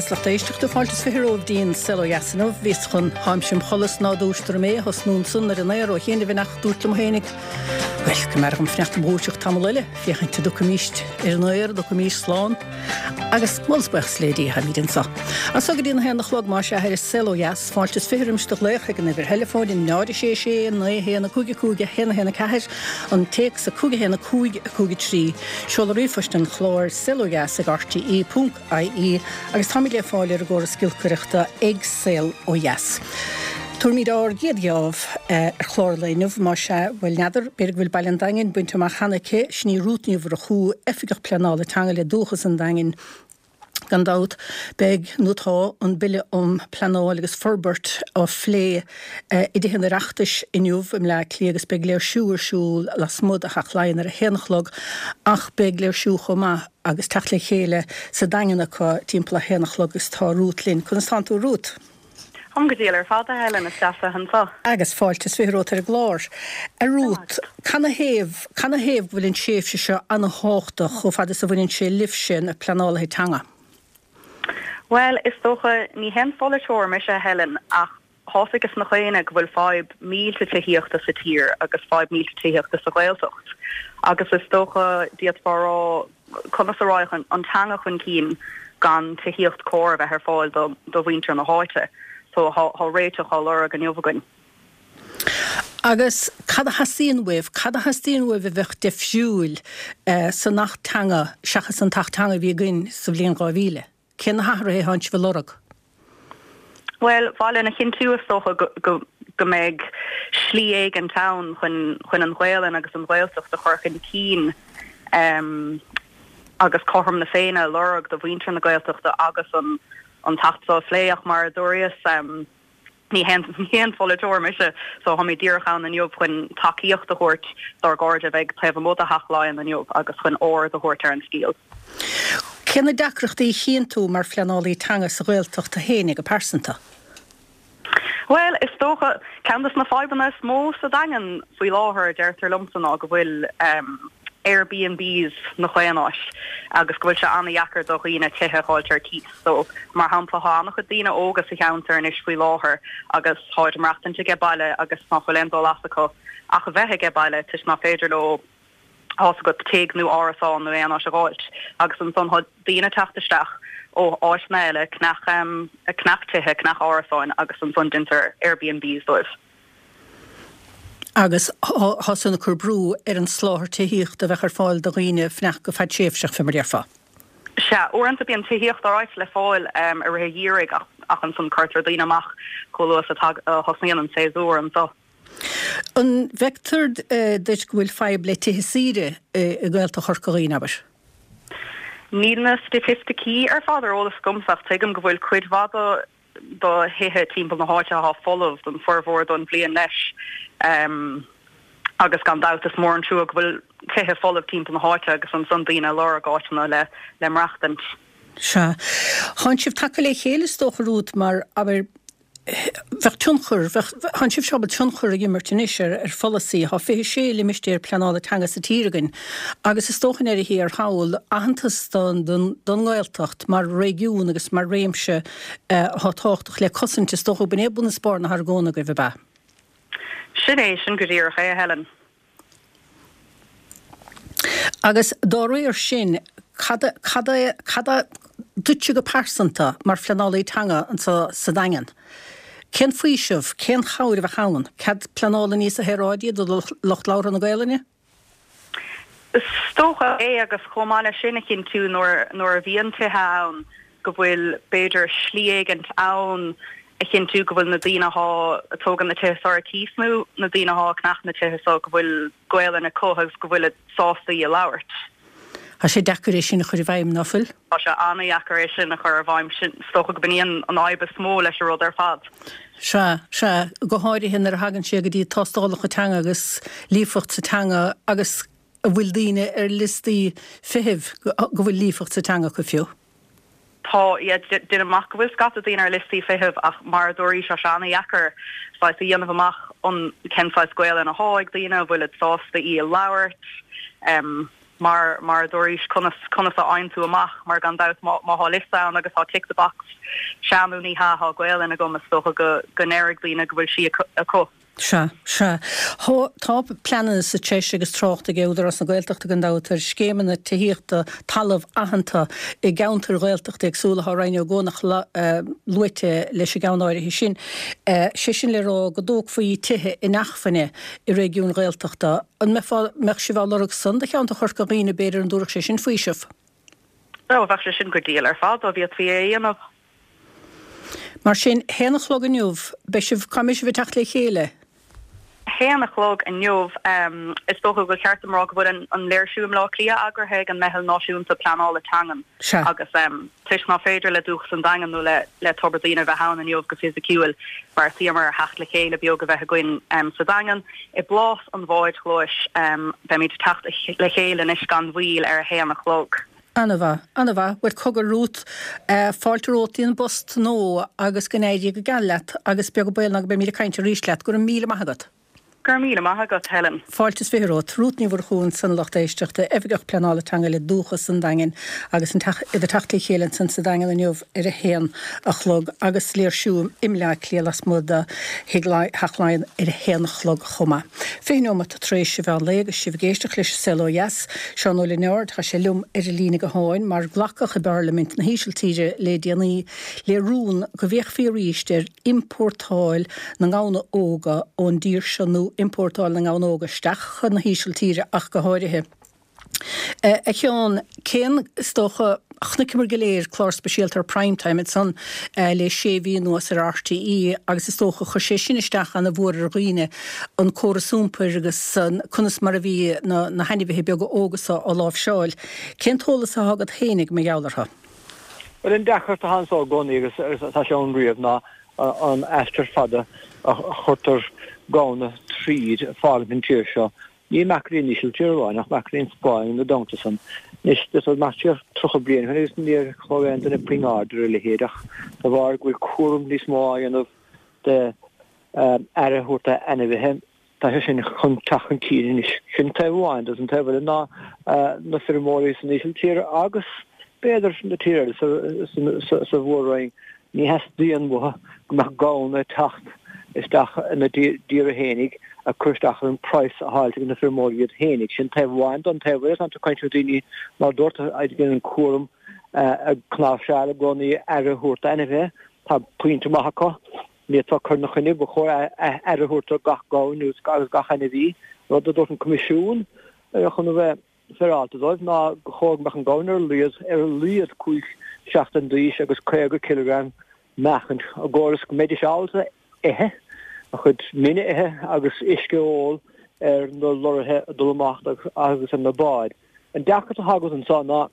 is lucht éisteachta, fáilte is 20 romhaibh dtí'n Saol Ó Dheas inniu. Bhíos chun Táimse im chodladh 's ná dúistear mé a thosnú ansan ar an aer ó chianaibh ach dúrt liom fhéinig, bhuel, go mb'fhearr dhom fanacht im dhúiseacht tamall eile, féachaint an dtiocfaimíst ar an aer, an dtiocfaimíst slán. Agus moladh is buíochas le Dia, táimíd anso. As so go dtí an haon a chlog, más ea, ar an Saol Ó Dheas, fáilte is 20 roimis do ghlaoch ag an uimhir theileafóin, 0 6 6 9 1 5 5 1 1 4, an téacs 5 1 5 5 3. Seoladh ríomhphoist an chláir, saolodheas ag rte ponc ie agus táimid le fáil ar an gcóras giolcaireachta ag Saol Ó Dheas. Tabharfaimid ár gcéad gheábh ar chlár an lae inniu, más ea, bhuel n'fheadar, b'fhéidir go bhfuil baile an Daingin bainte amach cheana aici, sin í Rút Ní Mhurchú, Oifigeach Pleanála Teanga le Dúchas an Daingin. Gan dabht, beidh, nó tá, an Bille um Pleanáil agus Forbairt á phlé i dTithe an Oireachtais inniu i mBleá Cliath agus beidh léirsiú ar siúl lasmuigh de Theach Laighean ar a haon a chlog ach beidh léirsiú chomh maith agus teacht le chéile sa Daingean acu timpeall a haon a chlog agus tá Rút linn. Conas tánn tú a Rút? Táim go diail ar fad, a Helen, is deas a bheith anseo. Agus fáilte is 20 romhat ar an gclár. A Rút, canathaobh, canathaobh go bhfuil an tréimhse seo ana-thábhachtach chomh fada is a bhaineann sé libhse, na pleanálaithe teanga? Bhuel, is dócha, ní haon pholaiteoir mise, a Helen, ach thá's aige gach éinne go bhfuil fadhb millte tithíochta sa tír agus fadhb millte tithíochta sa Ghaeltacht. Agus is dócha, d'fhéadfá a rá, conas a raghadh an teanga chun cinn gan tithíocht cóir a bheith ar fáil do mhuintir na háite. So thá réiteach á lorg inniu againn. Agus cad a theastaíonn uaibh? Cad a theastaíonn uaibh a bheadh deifriúil san Acht Teanga seachas an tAcht Teanga a bhí againn sa bhliain 2000? Cé na hathruithe atánn sibh a lorg? Bhuel, ba mhaith linn a chinntiú is dócha go go mbeidh slí éigint ann chun chun an Ghaelainn agus an Ghaeltacht a chur chun cinn agus cothrom na Féinne a lorg do mhuintir na Gaeltachta agus an an tAcht seo a phlé ach mar a dúraíos Ní haon pholaiteoir mise so táimid díreach ann inniu chun tacaíocht a thabhairt dár gcairde a bheidh taobh amuigh de Theach Laighean inniu agus chun aird a thabhairt ar an scéal. Cé na deacrachtaí a chíonn tú mar phleanálaí teanga sa Ghaeltacht féin go pearsanta? Bhuel, is dócha, ceann de na fadhbanna is mó sa Daingean faoi láthair, deirtear liomsa, ná go bhfuil Airbnbs 'na chaon áit agus go bhfuil sé an-dheacair do dhaoine tithe a dh'fháilt ar cíos. So, mar shampla, thá an-chuid daoine óga sa cheantar anois faoi láthair agus tháid ag maireachtaint aige baile agus ná fuil aon dul as acu ach a bheith aige baile toisc ná féidir leo, thá's agat, tigh nó árasán nó aon áit a dh'fháilt. Agus ansan thá daoine ag teacht isteach ó áiteanna eile, ceannach, ceannach tithe, ceannach árasáin agus ansan deintear Airbnbs dóibh. Agus thá san ag cur brú ar an soláthar tithíochta a bheadh ar fáil do dhaoine fanacht go fadtréimhseach, fé mar a déarfá. Sea, uaireanta bíonn tithíocht alright le fáil i rith an gheimhridh ach ansan cuirtear daoine amach chomh luath is a thosnaíonn an séasúr anso. An bhfeictear duit go bhfuil fadhb le tithe saoire i nGaeltacht Chorca Dhuibhne, abair? Níl na staitisticí ar fad ar eolas agamsa ach tuigim go bhfuil cuid mhaith do do thithe timpeall na háite athá folamh don formhór don bhliain leis agus gan dabht is mór an trua go bhfuil tithe folamh timpeall na háite agus ansan daoine ag lorg áiteanna le le maireachtaint. Sea. Thánn sibh tagtha le chéile is dócha Rút mar, abair, bheadh tionchar, bheadh, thánn sibhse ábalta tionchar a imirt anois ar ar pholasaí. Thá 26 limistéar pleanála teanga sa tír againn agus is dócha i ndeireadh thiar thall aitheantas don don don nGaeltacht mar réigiún agus mar réimse athá tábhachtach le cosaint, is dócha b'in é bun is barr na hargóna agaibh, ab ea? Sin é, sin go díreach é, a Helen. Agus dá réir sin, cad, cad é, cad é duitse go pearsanta mar phleanálaí teanga anseo sa Daingean? Cén faoiseamh, cén chabhair a bheadh ann? Cead pleanála níosa shaoráidí do lucht labhartha na Gaelainne? Is dócha é agus chomh maith leis sin a chinntiú nuair nuair a bhíonn tithe ann go bhfuil b'fhéidir slí éigint ann a chinntiú go bhfuil na daoine athá ag tógaint na tithe seo ar cíos nó na daoine athá ag ceannach na tithe seo go bhfuil Gaelainn acu agus go bhfuilid sásta í a labhairt. Tá sé deacair é sin a chur i bhfeidhm, ná fuil? Tá sé an-dheacair é sin a chur i bhfeidhm. Sin, is dócha go b'in í an fhadhb is mó leis an rud ar fad. Sea, sea, go háirithe nuair a thagann sé go dtí tástálacha teanga agus líofacht sa teanga agus an bhfuil daoine ar liostaí feithimh go bhfuil líofacht sa teanga acu fiú. Tá, yeah, deinim amach go bhfuil scata daoine ar liostaí feithimh ach mar a dúraís tá sé an-dheacair saghas a dhéanamh amach an cén saghas Gaelainn athá ag daoine, an bhfuilid sásta í a labhairt. Mar, mar a dúraís, conas, conas a fhaigheann tú amach, mar gan dabht má, má thá liosta ann agus thá tick the box, sea nó ní hea, thá Gaolainn agam, is dócha go, go ndéarfaidh daoine go bhfuil sí acu. Sea, sea. Thá, tá pleananna sa treis agus trácht ag Údarás na Gaeltachta gan dabht ar scéimeanna tithíochta talamh aitheanta i gceantair Ghaeltachta éagsúla. Thá Rinn Ó gCuanach luaite leis an gceann áirithe sin. Sé sin le rá go dtógfaí tithe inacmhainne i réigiúin Ghaeltachta. An mbeifeá, mbeadh sibh á lorg san do cheantar Chorca Dhuibhne, b'fhéidir, an dtabharfadh sé sin faoiseamh? Ó, bheadh sé sin go diail ar fad dá bhféadfaí é a dhéanamh. Mar sin, haon a chlog inniu, beidh sibh, cá mbeidh sibh ag teacht le chéile? Haon a chlog inniu, is dócha gur cheart dom rá go bhfuil an léirsiú i mBleá Cliath eagraithe ag an Meitheal Náisiúnta Pleanála Teangan Sea. agus toisc ná féidir le Dúchas an Daingin nó le Tobar Daoine bheith ann inniu go fisiciúil, bheartaíomar ar theacht le chéile beag a bheith againn sa Daingean. I bPlás an Bháid Ghlais, beimid ag teacht le chéile anois gan mhoill ar a haon a chlog. Ana-mhaith, ana-mhaith. Bhuel, cogar Ruth, fáilte romhat dtí an bpost nua agus go n-éirí go geal leat agus beag an baol ná go mbeimid ag caint arís leat. Go raibh míle maith agat. Go raibh míle maith agat, Helen. Fáilte is 20 romhat. Rút Ní Mhurchú ansan a lucht éisteachta, Oifigeach Pleanála Teanga le Dúchas an Daingin agus an teach, iad ag teacht le chéile ansan sa Daingean inniu ar a haon a chlog agus léirsiú i mBleá Cliath lasmuigh de Thigh Theach Laighean ar a haon a chlog chomh maith. 20 neomat tar éis an mheán lae agus sibh ag éisteacht leis an Saol Ó Dheas. Seán Ó Lionáird, tá sé liom ar an líne gutháin mar glacadh i bParlaimint na hÍsiltíre le déanaí le rún go bhféachfaí arís ar iompórtáil na ngamhna óga ón dtír seo nó iompórtáil na ngamhna óga isteach chun na hÍsiltíre ach go háirithe. A Sheáin, cén, is dócha, chonaiceamar go léir clár speisialta ar Prime Time ansan le sé mhí anuas ar RTÉ agus is dócha chuir sé sin isteach ana mhór ar dhaoine, an córas iompair agus conas mar a bhí na na hainmhithe beaga óga so á láimhseáil. Cén t-eolas atá agat fhéinig mar gheall orthu? Bhuel, an deacracht atá anso i gcónaí agus atá sé ann riamh ná an aistear fada a chuirtear gamhna tríd ag fágaint an tír seo. Ní amach go dtí an Ísiltír amháin ach amach go dtí an Spáinn ina dteannta san. Anois, d'fhéadfá dul amach siar 30 bliain ó shin agus níor thug aon duine puinn aird ar a leithéid ach de bharr go bhfuil cúram níos mó á dhéanamh de aire a thabhairt d'ainmhithe, tá sé sin chun teacht chun cinn anois. Sin taobh amháin de. An taobh eile ná na feirmeoirí san Ísiltír agus b'fhéidir na tíortha eile sa mhór-roinn, Ní theastaíonn uathu go mbeadh gamhna ag teacht isteach ina dtíortha fhéinig ag cur isteach ar an praghas a fháil ag na feirmeoirí iad fhéinig. Sin taobh amháin den taobh eile. Tá tú ag caint le daoine mar a dúirt a dhéanann an cúram ag cnáimhseáil i gcónaí aire a thabhairt d'ainmhithe. Tá pointe maith acu. Ní fhéadfá cur ina choinne. Ba chóir aire a thabhairt do gach gamhain agus gach ainmhí. Rud a dúirt an Coimisiún chun a bheith féaráilte dóibh ná gur chóir go mbeadh an gamhain ar a laghad ar a laghad 5 seachtain d'aois agus 50 cileagram meáchaint i gcomhair is go mbeidís ábalta ithe, a chuid mine a ithe agus uisce a ól ar na lorraithe ag dul amach agus ar na báid. An deacracht atá agat anseo ná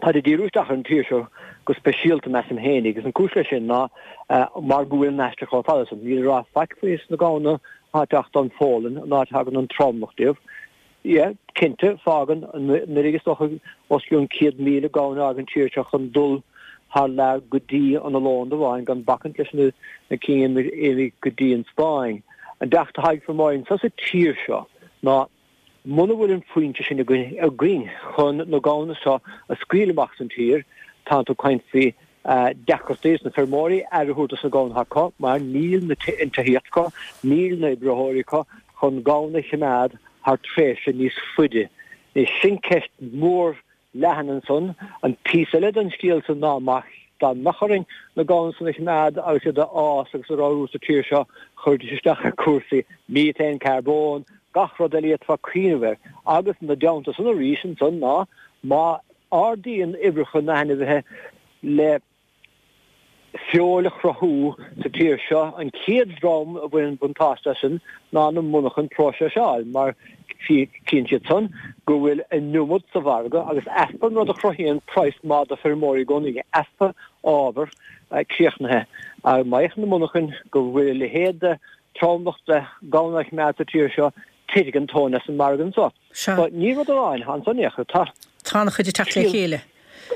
táid ag díriú isteach ar an tír seo go speisialta, measaim féin, agus an cúis leis sin ná mar go bhfuil an aistear chomh fada san. Níl a rá faic faoi sna gamhna atá ag teacht ón Pholainn, an áit a thagann an tromlach díobh. Yeah, cinnte, fágann anuraidh is dócha os cionn 100,000 gamhain a fhág an tír seo chun dul thar lear go dtí an Ollónd amháin, gan bacaint leis na cinn a imigh go dtí an Spáinn. An deacracht atá ag feirmeoirí anseo sa tír seo ná muna bhfuil an foinse sin againn chun na gamhna seo a scaoileadh amach as an tír, tánn tú ag caint faoi deacrachtaí dos na feirmeoirí aire a thabhairt dos na gamhna atá acu mar níl an tithíocht acu, níl na oibritheoirí acu chun gamhna a choimeád thar tréimhse níos faide. Anois, sin ceist mhór leathan ansan. An píosa eile den scéal san ná má dá mbeadh orainn na gamhna san a choimeád agus iad a fhás agus a ramhrú sa tír seo, chuirfidís isteach ar chúrsaí methane, carbón, gach rud eile a d'fhéadfá cuimhneamh air. Agus ina dteannta san arís ansan ná má ardaíonn uimhreacha na n-ainmhithe le feoil a chruthú sa tír seo. An chéad dream a bhaineann buntáiste as sin ná na monarchain próiseáil mar chíonn siad san go bhfuil an iomad sa mhargadh agus easpa an rud a chruthaíonn praghas maith do feirmeoirí i gcónaí, easpa ábhar críochnaithe. Má fhéachann na monarchain go bhfuil a leithéid de tromlach de gamhna á choimeád sa tír seo, titfidh an tóin as an margadh anso. Sea. So, ní rud amháin ansan é, tá. Tá an-chuid ag teacht le chéile.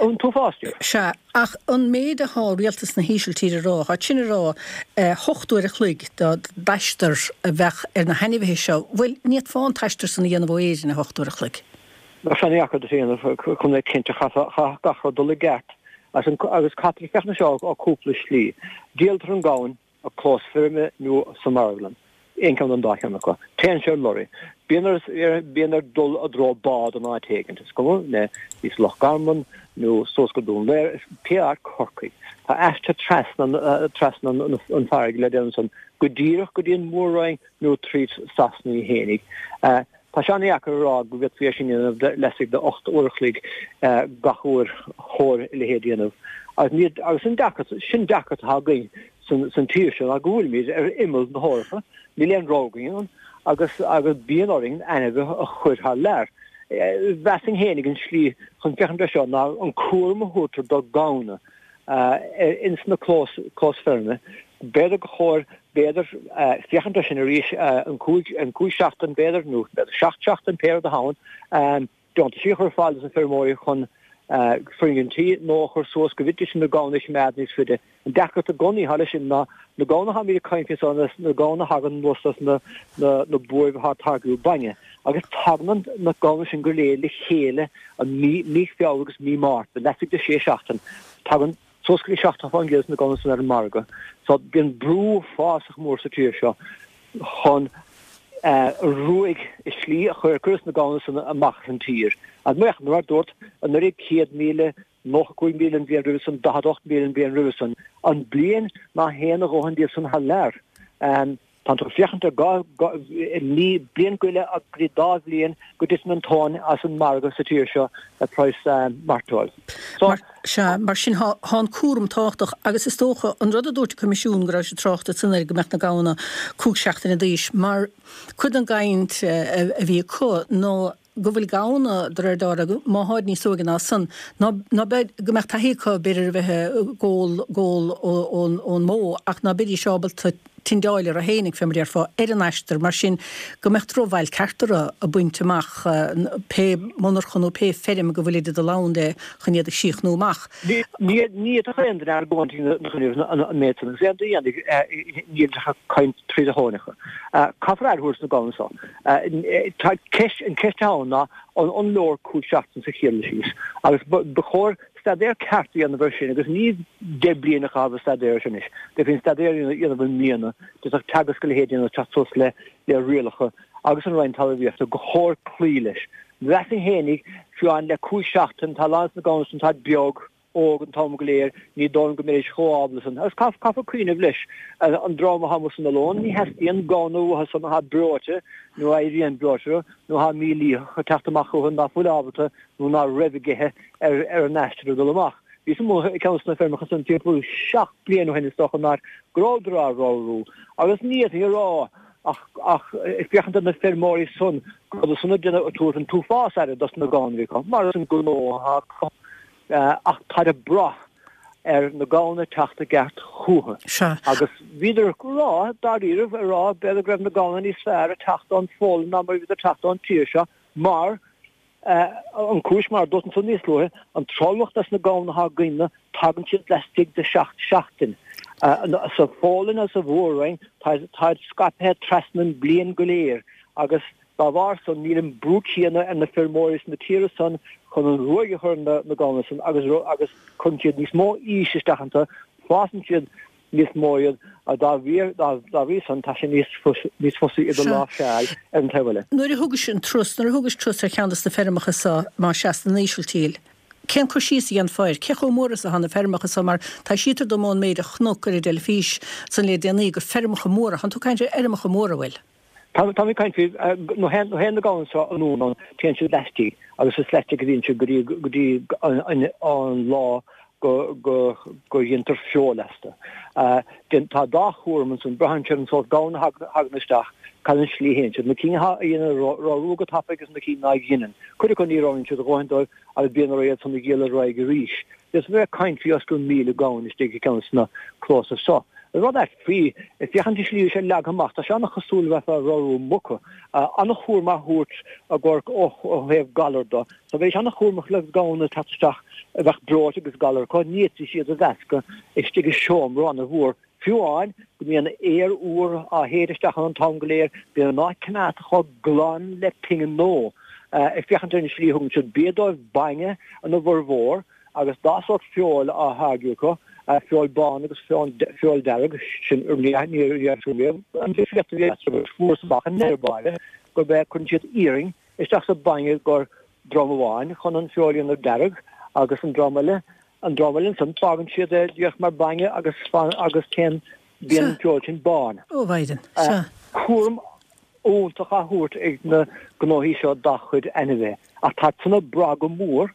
An t-uafás díobh. Sea, ach an méid athá rialtas na hÍsiltíre a rá, tá sin ag rá 8 uair a chloig d'aistear a bheadh ar na hainmhithe seo, bhuel, ní fhéadfá an t-aistear san a dhéanamh ó Éirinn i 8 uair a chloig. Bheadh sé an-dheacair duit a dhéanamh chun bheith cinnte, chaithfeadh gach rud dul i gceart agus caithfear féachaint air seo ó cúpla slí. Díoltar an gamhain i clós feirme nó sa marglann, aon cheann den dá cheann acu. Téann sé ar lorry. Bíonn air bíonn air dul i dtreo bád in áit éigint, is cuma le thíos Loch Garman nó suas go Dún Laoghaire, pé áit Corcaigh. Tá aistear trasna trasna an farraige le déanamh ansan go díreach go dtí an Mhór-Roinn nó tríd Sasana í fhéinig. Tá sé an-dheacair a rá go bhféadfaí é sin a dhéanamh laistigh de 8 uair a chloig gach uair chóir a leithéid a dhéanamh. Agus agus an deacracht, sin deacracht atá againn san tír seo ná go bhfuilimid ar imeall na hEorpa, níl aon rogha againn ann agus agus bíonn orainn ainmhithe a chur thar lear. Mheasfainn fhéinig an slí chun féachaint air seo ná an cúram a thabhartar do ghamhna ins na clós clós feirme. B'fhéidir gur chóir, b'fhéidir, féachaint air sin arís, an 5, an 5 seachtain b'fhéidir, nó b'fhéidir 7 seachtain, pé rud atá ann, deontaisí a chur ar fáil dos na feirmeoirí chun foirgintí nua a chur suas go bhféadfaidís na gamhna a choimeád níos faide. An deacracht i gcónaí atá leis sin ná na gamhna atáimid ag caint faoi so na gamhna a thagann anuas as na na buaibh atá ag táirgiú bainne agus tagann na gamhna sin go léir le chéile an mí mí Feabhra agus mí Márta, laistigh de 6 seachtain. Tagann suas go dtí 70% de na gamhna san ar an margadh. So bíonn brú uafásach mór sa tír seo chun ruaig i slí a chur cuireadh na gamhna san amach as an tír. Agus mar a dúrt, anuraidh 100,000, 95,000 an bhliain roimhe san, 48,000 an bhliain roimhe san. An bliain ná théann a dhóthain díobh san thar lear. Tá tú ag féachaint ar mí, bliain go leith go dtí dá bhliain go dtiteann an tóin as an margadh sa tír seo le praghas mairteoil. So. Sea, mar sin tá an cúram tábhachtach agus is dócha an rud a dúirt an Coimisiún go raibh siad ag trácht ansan air go mbeadh na gamhna 5 seachtaine d'aois mar cuid den gcaint a bhí acu nó go bhfuil gamhna, de réir dealraimh, má tháid níos óige ná san, ná, ná beidh, go mbeadh taithí acu, b'fhéidir, a bheith ag ól, gól ón, ón mbó, ach ná beidís ábalta tindeáil orthu fhéinig, fé mar a déarfá, ar an aistear, mar sin, go mbeadh drochbhail ceart orthu ag baint amach pé monarcha nó pé feirm go bhfuilid ag dul ann le chun iad a chríochnú amach. Ní fhéadfadh aon duine argóint ina choinne an méid san, agus aon duine a dhéanfaidh, níl ach ag caint tríd a thóineacha. Caithfear aire a thabhairt do na gamhna so. Tá ceist, an ceist atá ann ná an leor 5 seachtain sa chéad dul síos agus ba chóir staidéar ceart a dhéanamh air sin agus ní 10 bliain a chaitheamh ag staidéar air sin anois. D'fhéadfaí an staidéar a dhéanamh i mbliana, d'fhéadfadh Teagasc a leithéid a dhéanamh teacht suas le rialacha agus an Roinn Talmhaíochta gur chóir cloí leis. Mheasfainn fhéinig, fiú amháin le 5 seachtain, tá a lán de na gamhna san táid beag, óg an t-am go léir, ní dóigh liom go mbeidís chomh ábalta san. Agus caithfear cuimhneamh leis, an dream atá amuigh san oileán, ní theastaíonn gamhna uathu san atá breoite nó a éiríonn breoite nó atá mílítheach ag teacht amach chucu ná fuil ábalta nó ná raibh ag ithe ar ar an aistear ag dul amach. Bhíos amuigh ag ceann de na feirmeacha san timpeall 7 bliana ó shin is dócha in áit go rabhadar á ramhrú agus ní fhéadfainn a rá ach ach ag féachaint ar na feirmeoirí san go rabhadar san ag déanamh ag tabhairt an t-uafás aire dos na gamhna a bhí acu mar is an gnó atá acu. Ach táid ag brath ar na gamhna teacht i gceart chúthu. Sea. Agus bhíodar ag rá, dáiríribh, ag rá b'fhéidir go raibh na gamhna níos fearr ag teacht ón Pholainn ná mar a bhíodar ag teacht ón tír seo mar, an cúis, mar a dúirt ansan níos luaithe, an tromlach des na gamhna atá againne, tagann siad laistigh de sheacht seachtain. Sa Pholainn agus sa Mhór-Roinn, táid scaipthe trasna an bliain go léir agus Dá bharr san, níl an brú céanna ar na feirmeoirí sna tíortha san chun an ruaig a chur ar na gamhna san agus agus cuireann siad níos mó aois isteach iontu, fásann siad níos mó iad agus dá bhrí dá bhrí san tá sé níos níos fusa iad a láimhseáil ar an taobh eile. Nuair a thugais an turas, nuair a thugais turas ar cheann de na feirmeacha so, más ea, san Ísiltír, cén cur síos a dhéanfá air? Cé chomh mór is atá na feirmeacha so? Mar taibhsítear dom ón méid a chonac ar an dteilifís san le déanaí gur feirmeacha móra, thánn tú ag caint ar fheirmeacha móra, an bhfuil? Tá mé ag caint faoi, nuair a théann na gamhna seo anonn ann, téann siad laistigh agus is laistigh a bhíonn siad go dtí go dtí an lá go go go dhéantar feoil astu. Tá dá chúram ansan, braitheann sé ar an sórt gamhna a thagann isteach, cad an slí a théann siad, na cinn a dhéanann ramhrú go tapaidh agus na cinn ná dheineann. Cuid acu ní ramhraíonn siad a dhóthain dóibh agus bíonn orthu iad san a dhíol ar aghaidh arís. Is bheifeá ag caint faoi os cionn 1,000 gamhain istigh i gceann de na clósa so. An rud ait faoi, ag féachaint an slí a bhí sé leagtha amach, tá sé an-chosúil le bheifeá ag ramhrú muca. An-chúram á thabhairt i gcomhair ó thaobh galar do. So bheidís an-chúramach le gamhna ag teacht isteach a bheadh breoite agus galar acu, ní fhéadfaidís iad a mheascadh istigh i seomra an-mhór. Fiú amháin go mbíonn aer úr á shéideadh isteach ann an t-am go léir, bíonn an áit coimeádta chomh glan le pingin nua. Ag féachaint ar an slí a thugann siad bia dóibh, bainne ina bhformhór, agus dá sórt feoil á tháirgeadh acu, feoil bán agus feoil dearg, sin ní riamh an difríocht a bhí eatarthu agus fuarthas amach i ndeireadh báire gurb é cuireann siad iarann isteach sa bhainne gur dream amháin chun an feoil a dhéanamh dearg agus an dream eile an dream eile ansan fágann siad é díreach mar bainne agus agus téann bíonn an feoil sin bán. Ó Mhaighdean, sea. Cúram iontach á thabhairt ag na gnóthaí seo dá chuid ainmhithe ach tá san ag brath go mór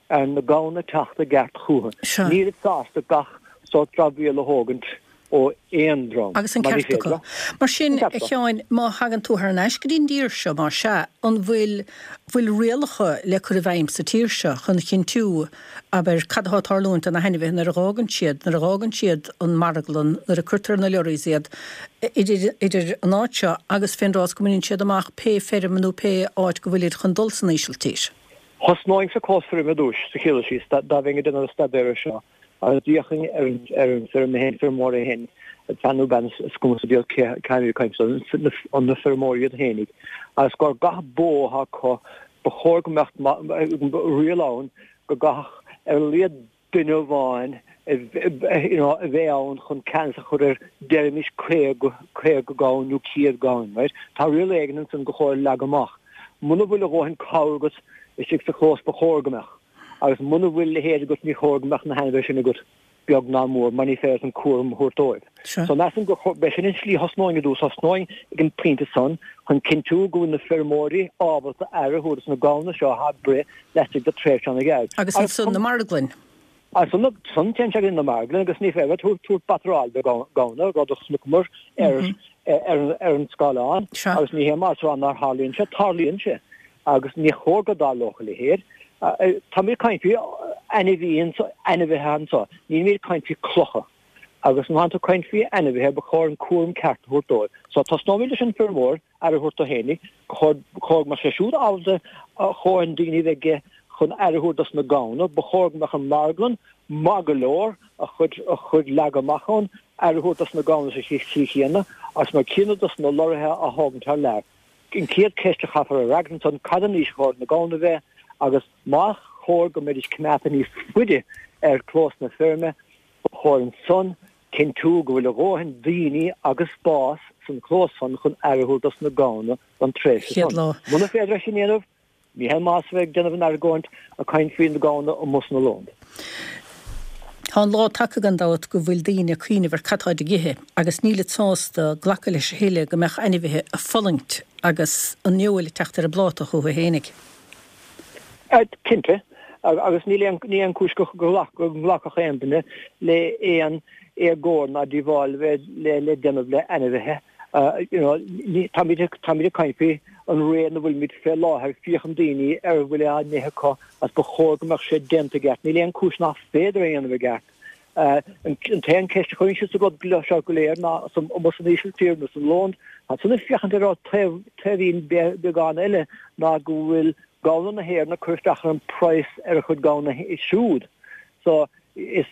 ar na gamhna teacht i gceart chucu. Nílid sásta gach sórt dramhaíl a thógaint ó aon dream, Agus an ceart acu. Mar sin, a Sheáin, má thagann tú thar n-ais go dtí an dtír seo, más ea, an bhfuil bhfuil rialacha le cur i bhfeidhm sa tír seo chun chinntiú, abair, cad atá ag tarlúint do na hainmhithe nuair a dh'fhágann siad, nuair a dh'fhágann siad an marglann, nuair a cuirtear ar na lorries iad, idir, idir an áit seo agus fén dtráth is go mbaineann siad amach pé feirm nó pé áit go bhfuilid chun dul san Ísiltír? Thosnóinn sa chlós feirme ar dtúis, sa chéad dul síos, dá bheinn ag déanamh an staidéir air seo. Agus d'fhéachfainn ar an ar an feirm féin, feirmeoir é féin, fear nó bean, is cuma sa diabhal cé cé ag caint an na feirmeoirí iad féinig, agus gur gach bó atá acu, ba chóir go mbeadh riail ann go gcaithfeadh ar a laghad duine amháin you know, a bheith ann chun ceannas a chur ar deirimis 50, 50 gamhain nó 100 gamhain, right? Tá riail éigin ansan go chóir leagadh amach. Muna bhfuil a dhóthain cabhair agat istigh sa chlós ba chóir go mbeadh. Agus muna bhfuil a leithéid agat ní chóir go mbeadh na hainmhithe sin agat beag ná mór mar ní féidir leat an cúram a thabhairt dóibh. So measaim gur b'é sin an slí thosnóinn i dtús, thosnóinn ag an pointe san chun cinntiú go bhfuil na feirmeoirí ábalta aire a thabhairt dos na gamhna seo atá ag breith laistigh de tréimhse an-ghearr. Agus ansan na marglainn. Ansan san téann sé go dtí na marglainn agus ní féidir leat tabhairt batráil do ghamhna, rud a chonaiceamar ar ar an scáileán agus ní hé mar rá nár tharlaíonn sé, tarlaíonn sé. Agus ní chóir go dtarlódh a leithéid. Táimid ag caint faoi ainmhí anso, ainmhithe anso. Nílimid ag caint faoi clocha. Agus má tánn tú ag caint faoi ainmhithe, ba chóir an cúram ceart a thabhairt dóibh. So tosnóimid leis an feirmeoir, aire a thabhairt dó fhéinig. Ba chóir, ba chóir go mbeadh sé siúd ábalta a dhóthain daoine a bheith aige chun aire a thabhairt dos na gamhna. Ba chóir go mbeadh an marglann maith go leor, a chuid, a chuid leagtha amach ann, aire a thabhairt dos na gamhna sa tslí chéanna, agus mar céanna dos na lorraithe á thógaint thar lear. An chéad cheist a chaithfear a fhreagairt ansan, cad an aois a chóir na gamhna a bheith agus más chóir go mbeidís coimeádta níos faide ar chlós na feirme, ba chóir ansan cinntiú go bhfuil a dhóthain daoine agus spás san chlós san chun aire a thabhairt dos na gamhna don tréimhse san. Muna féidir é sin a dhéanamh, Ní haon maitheas a bheith ag déanamh an argóint ag caint faoi na gamhna amuigh san Ollónd. Tá an lá tagtha gan dabht go bhfuil daoine ag cuimhneamh ar cad táid ag ithe agus nílid sásta glacadh leis a thuilleadh go mbeadh ainmhithe ag fulaingt agus an fheoil ag teacht ar a bpláta chucu fhéinig. Cinnte, agus níl aon ní aon chúis go nglacfadh aon duine le aon éagóir ná díobháil a bheith le déanamh le ainmhithe. You know, táimid ag táimid ag caint faoi an ré ina bhfuilimid fé láthair, féachann daoine ar a bhfuil á n-ithe acu agus ba chóir go mbeadh sé déanta i gceart. Níl aon chúis nach féidir é a dhéanamh i gceart. An t-aon ceist a chuireann siad sa rud seo go léir ná amuigh san Ísiltír nó san Ollónd, tá san ag féachaint ar an taobh taobhín beagán eile ná go bhfuil gamhna na hÉireann ag cur isteach ar an praghas ar a chuid gamhna siúd. So Is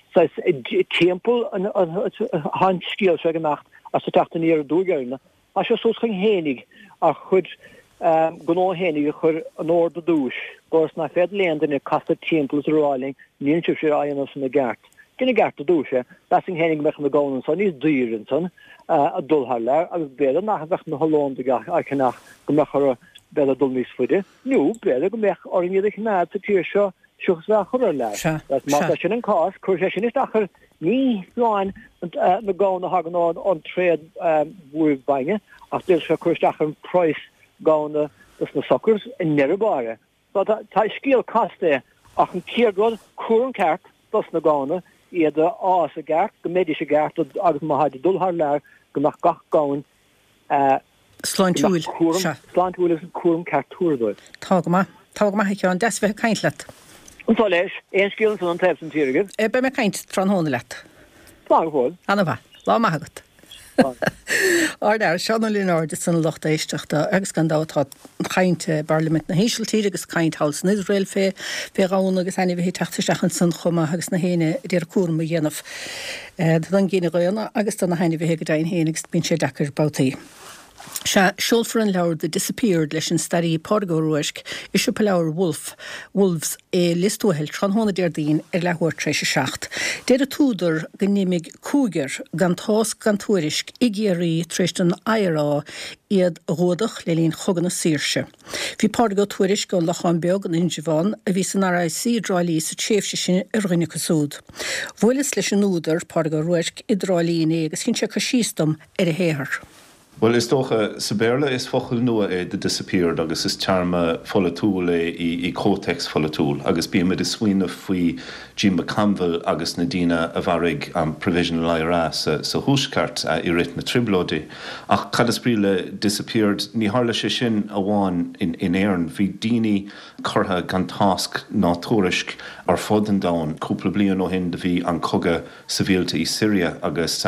timpeall atá an scéal seo ag imeacht as ag teacht aniar aduaidh orainn. Tá sé suas chugainn fhéinig ár chuid gnó fhéinig a chur in ord i dtús, gur is nach féidir le aon duine casadh timpeall is a rá linn níl sibhse á dhéanamh san i gceart. Déan i gceart i dtús é. Mheasfainn fhéinig go mbeadh na gamhna anso níos daoire ansan ag dul thar lear agus b'fhéidir nach mbeadh na hOllóndaigh á cheannach go mbeadh orthu b'fhéidir dul níos faide nó b'fhéidir go mbeadh orainn iad a choimeád sa tír seo seachas bheith á chur ar lear. Sea, Agus má sea. tá sin an cás, cuirfidh sé sin isteach ar ní hamháin na gamhna a thagann ón tréad mhór bainne, ach d'fhéadfadh sé cur isteach ar an praghas gamhna dos na suckers i ndeireadh báire. So tá, tá scéal casta é, ach an chéad rud, cúram ceart dos na gamhna, iad a fhás i gceart, go mbeidís i gceart agus má tháid ag dul thar lear, go mbeadh gach gamhain Sláintiúil. Sea. Sláintiúil agus an cúram ceart tabhartha dóibh. Tá go maith. Tá go maith, a Sheáin. Deas a bheith ag caint leat. Anso leis. Aon scéal ansan ón taobh san tír agaibh? Beidh mé ag caint tráthnóna leat. Slán go fóill. Ana-mhaith. Lá maith agat. Ár bhfear, Seán Ó Lionáird ansan a lucht éisteachta agus gan dabht tá caint i bParlaimint na hÍsiltíre agus caint thall san Iosrael fé fé ghamhna agus ainmhithe ag teacht isteach ansan chomh maith agus na héinne a d'iarraidh cúram a dhéanamh don gcine dhaonna agus do na hainmhithe go deimhin féin agus bíonn sé deacair babhtaí. Sea, seolfar an leabhar The Disappeared leis an staraí Pádraig Ó Ruairc i siopa leabhar Wolfe, Wolves i Lios Tuathail tráthnóna Déardaoin ar leathuair tar éis a 7. Deir an t-údar go n-imigh cúigear gan tásc gan tuairisc i gCiarraí tar éis don IRA iad a ghuadach le linn Chogadh na Saoirse. Bhí Pádraig Ó Tuairisg ón Lochán Beag in Indreabhán, a bhí san RIC i dTrá Lí sa tréimhse sin, ar dhuine acu siúd. Bhuaileas leis an údar, Pádraig Ó Ruairc, i dTrá Lí inné agus dhein sé cur síos dom ar a shaothar. Bhuel, is dócha, sa Bhéarla is focal nua é 'the disappeared' agus is téarma pholaitiúil é i comhthéacs pholaitiúil agus bímid ag smaoineamh faoi Jim McConville agus na daoine a mharaigh an Provisional IRA sa Thuaisceart i rith na Trioblóidí. Ach cad is brí le 'disappeared'? Ní tharla sé sin amháin in Éirinn. Bhí daoine curtha gan tásc ná tuairisc ar fud an domhain. Cúpla bliain ó shin do bhí an cogadh sibhialta i Siria agus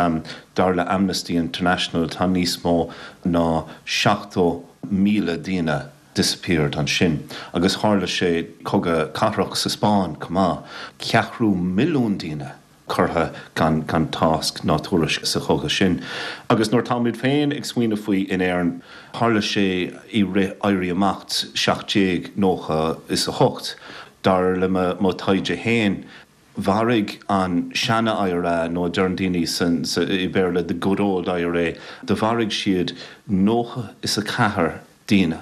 dar le Amnesty International tá níos mó ná 70,000 daoine disappeared ansin. Agus tharla sé cogadh cathrach sa Spáinn chomh maith, ceathrú milliún daoine curtha gan gan tásc ná tuairisc sa chogadh sin. Agus nuair táimid féin ag smaoineamh faoi in Éirinn, tharla sé i rith Éirí Amach 1798, dar le mo taighde féin, Mharaigh an seana-IRA, nó a deireann daoine san, sa, i Béarla, the good old IRA, do mharaigh siad 94 daoine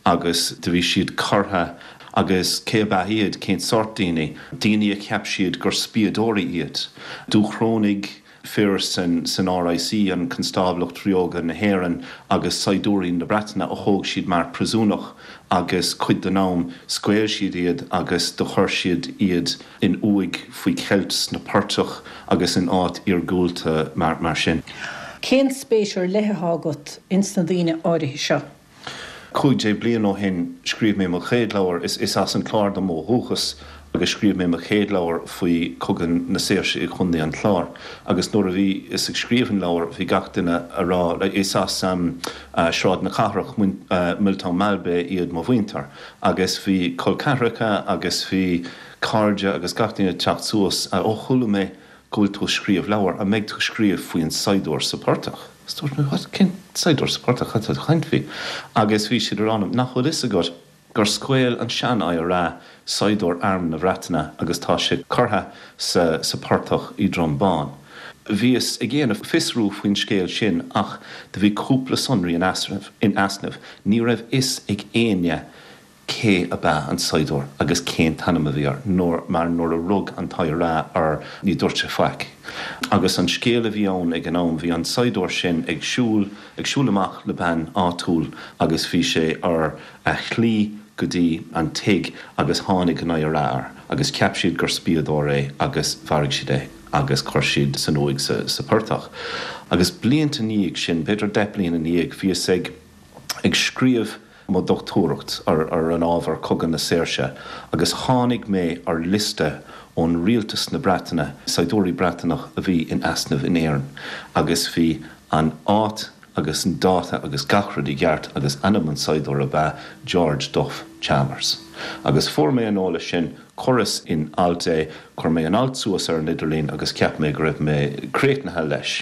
agus do bhí siad curtha agus cé ab ea iad, cén sórt daoine? Daoine a cheap siad gur spiadóirí iad. Dúchrónaigh. fir san RIC, an Constáblacht Ríoga na hÉireann, agus saighdiúirí na Breataine a thóg siad mar príosúnach agus cuid den am scaoil siad iad agus do chuir siad iad in uaigh faoi cheilt sna portaigh agus in áit iargúlta mar sin. Cén spéis ar leith atá agat ins na daoine áirithe seo? 15 bliain ó shin scríobh mé mo chéad leabhar, is as an Clár dom ó dhúchas, agus scríobh mé mo chéad leabhar faoi Chogadh na Saoirse i gContae an Chláir. Agus nuair a bhíos ag scríobh an leabhair bhí gach duine a rá, is as Sráid na Cathrach, Milltown Malbay iad mo mhuintir, agus bhí col ceathracha agus bhí cairde agus gach duine ag teacht suas, ó chuala mé go bhfuil tú ag scríobh leabhar, an mbeidh tú ag scríobh faoin saighdiúir sa portach? Is dúirt mé, what, cén saighdiúir sa portach, cad tá tú ag caint faoi? Agus bhí siad a rá liom, nach bhfuil fhios agat gur scaoil an sean-IRA saighdiúir arm na Bhreataine agus tá sé curtha sa sa portach i Droim Bán. Bhíos ag dhéanamh fiosrú faoin scéal sin ach do bhí cúpla sonraí in easnamh, ní raibh fhios ag éinne cé ab ea an saighdiúir agus cén t-ainm a bhí air, nuair, mar nuair a rug an t-IRA air ní dúirt sé faic. Agus an scéal a bhí ann ag an am, bhí an saighdiúir sin ag siúl, ag siúl amach le bean áitiúil agus bhí sé ar a shlí go dtí an tigh agus tháinig an IRA air agus cheap siad gur spiadóir é agus mharaigh siad é agus chuir siad san uaigh sa, sa portach. Agus blianta ina dhiaidh sin, b'fhéidir 10 bliain ina dhiaidh, bhíos ag, ag scríobh mo dhochtúireacht ar an ábhar Cogadh na Saoirse agus tháinig mé ar liosta ón Rialtas na Breataine, saighdiúirí Breataineach a bhí in easnamh in Éirinn agus bhí an áit agus an dáta agus gach rud i gceart agus ainm an saighdiúir ab ea George Duff Chalmers. Agus fuair mé an eolas sin, chuireas in alt é, chuir mé an alt suas ar an idirlíon agus cheap mé go raibh mé críochnaithe leis.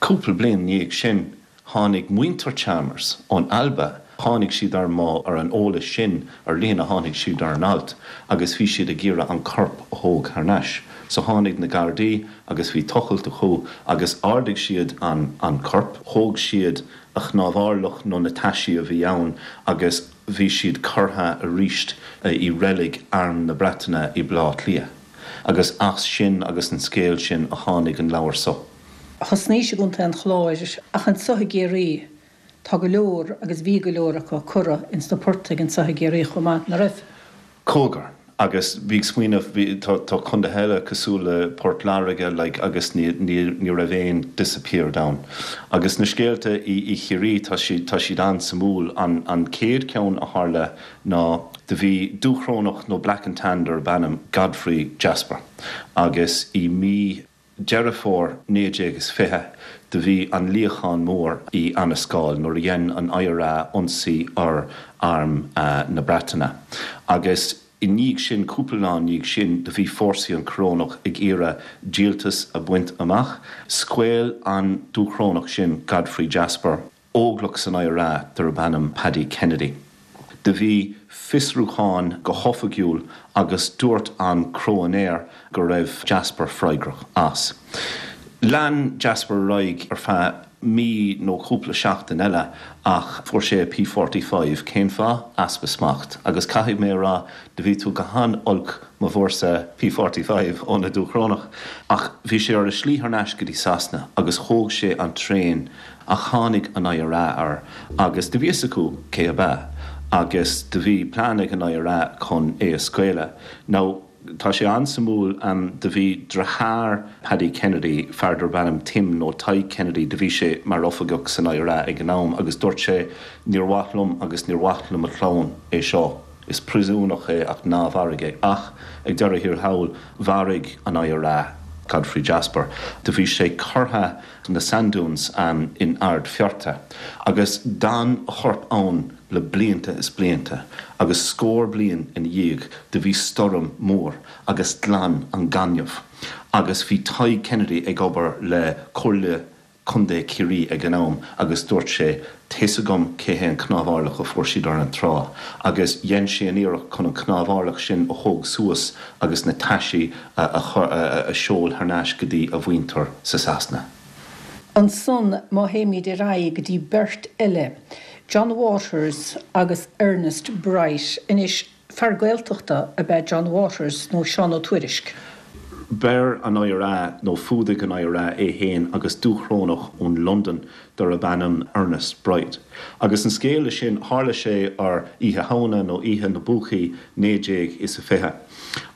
Cúpla bliain ina dhiaidh sin, Tháinig muintir Chalmers ón Alba, tháinig siad ar mo, ar an eolas sin ar líne, tháinig siad ar an alt agus bhí siad ag iarraidh an corp a thóg thar n-ais. So tháinig na Gardaí agus bhí tochailt acu agus ardaigh siad an, an corp, thóg siad a chnámharlach nó na taisí a bhí ann agus bhí siad curtha aríst i reilig Arm na Breataine i Baile Átha Cliath. Agus as sin agus an scéal sin a tháinig an leabhar so. Thosnaís i gContae an Chláir ach anso i gCiarraí tá go leor agus bhí go leor acu curtha ins na portaigh anso i gCiarraí chomh maith, ná raibh? Cúigear. Agus bhí ag smaoineamh, bhí, tá, tá contaetha eile cosúil le Port Láirge like agus ní, ní, ní raibh aon disappeared ann. Agus na scéalta i, i Chiarraí tá siad, tá siad an-suimiúil. An, an chéad cheann a tharla ná do bhí Dúchrónach nó Black and Tan darb ainm Godfrey Jasper agus i mí, Deireadh Fómhair 1920 do bhí an luíochán mór i Annascaul nuair a dhein an IRA ionsaí ar arm na Breataine agus i ndiaidh sin, cúpla lá i ndiaidh sin, do bhí fórsaí an Chorónach ag iarraidh díoltas a bhaint amach. Scaoil an Dúchrónach sin, Godfrey Jasper. Óglach san IRA darb ainm Paddy Kennedy. Do bhí fiosrúchán go hoifigiúil agus dúirt an cróinéir go raibh Jasper freagrach as. Lean Jasper ar aghaidh ar feadh mí nó cúpla seachtain eile ach fuair sé a P45. Cén fáth? Easpa smacht. Agus caithfidh mé a rá, do bhí tú go han-olc má bhfuair-sa P45 ó na Dúchrónach. Ach bhí sé ar a slí thar n-ais go dtí Sasana agus thóg sé an traein Ach tháinig an IRA air agus do bhí fhios acu cé ab ea agus do bhí plean ag an IRA chun é a scaoileadh. Now, tá sé an-suimiúil, do bhí driotháir Paddy Kennedy, fear darb ainm Tim nó Tadhg Kennedy, do bhí sé mar oifigeach san IRA ag an am agus dúirt sé níor mhaith liom agus níor mhaith le mo chlann é seo, is príosúnach é ach ná mharaigh é. Ach ag deireadh thiar thall, mharaigh an IRA Godfrey Jasper. Do bhí sé curtha na Sand Dunes in Ard Fearta, agus d'fhan a chorp ann le blianta is blianta, agus scór bliain ina dhiaidh do bhí stoirm mór agus ghlan an gaineamh, agus bhí Tadhg Kennedy ag obair le Comhairle Contae Chiarraí ag an am agus dúirt sé, Tá's agam cé hé an cnámharlach a fuair siad ar an trá, agus dhein sé an iarracht chun an cnámharlach sin a thóg suas agus na taisí a a sheol thar n-ais go dtí a mhuintir sa Sasana. Ansan má théimid ar aghaidh go dtí beirt eile, John Waters agus Ernest Bright. Anois, Fear Gaeltachta ab ea John Waters nó Seán Ó Tuairisg. Bheir an IRA, nó fuadaigh an IRA é fhéin agus Dúchrónach ón Londain darb ainm Ernest Bright. Agus an scéal le sin, tharla sé ar Oíche Shamhna nó Oíche na bPúcaí 1920.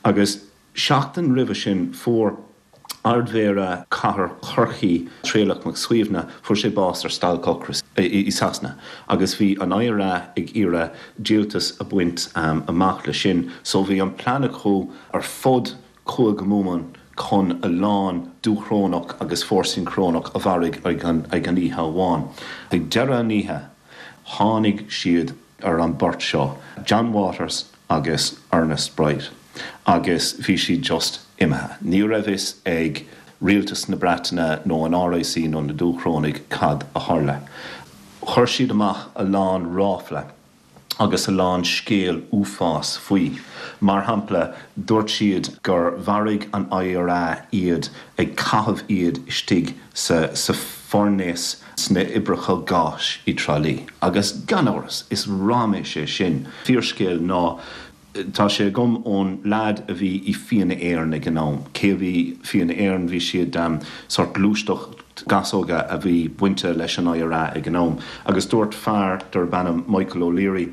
Agus seachtain roimhe sin fuair. Ardmhéara Chathair Chorcaí, Traolach Mac Suibhne, fuair sé bás ar stailc ocrais i Sasana agus bhí an IRA ag iarraidh díoltas a bhaint amach le sin so bhí an plean acu ar fud Chúige Mumhan chun a lán Dúchrónach agus fórsaí Crónach a mharaigh ag an oíche amháin. Ag deireadh an oíche tháinig siad ar an beirt seo, John Waters agus Ernest Bright, agus bhí siad just imithe. Ní raibh fhios ag Rialtas na Breataine nó an RIC nó na Dúchrónaigh cad a tharla. Chuir siad amach a lán ráfla agus a lán scéal uafás faoi. Mar shampla, dúirt siad gur mharaigh an IRA iad ag caitheamh iad istigh sa sa foirnéas sna oibreacha gáis i dTrá Lí. Agus gan amhras, is raiméis é sin. Fíorscéal ná tá sé agam ón leaid a bhí i Fianna Éireann ag an am. Cé a bhí Fianna Éireann? Bhí siad sórt gluaisteacht gasóga a bhí bainte leis an IRA ag an am. Agus dúirt fear darb ainm Michael O'Leary,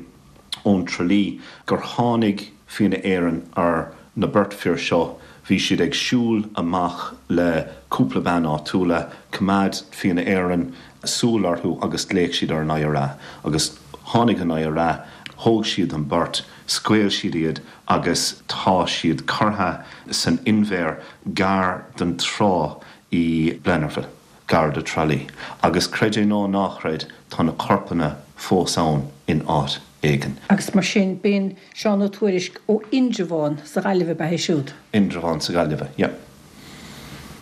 ón Tralee gur tháinig Fianna Éireann ar na beirt fir seo, bhí siad ag siúl amach le cúpla bean áitiúla, coimeád Fianna Éireann súil orthu agus ghlaoch siad ar an IRA agus tháinig an IRA, thóg siad an beirt, scaoil siad iad agus tá siad curtha san inbhear gar don trá i Blennerville. gar do Tralee. Agus creid é nó ná chreid, tá na corpanna fós ann in áit éigin. Agus mar sin, b'in Seán Ó Tuairisg ó Indreabhán sa Ghaillimh ab ea é siúd? Indreabhán sa Ghaillimhe, yeah.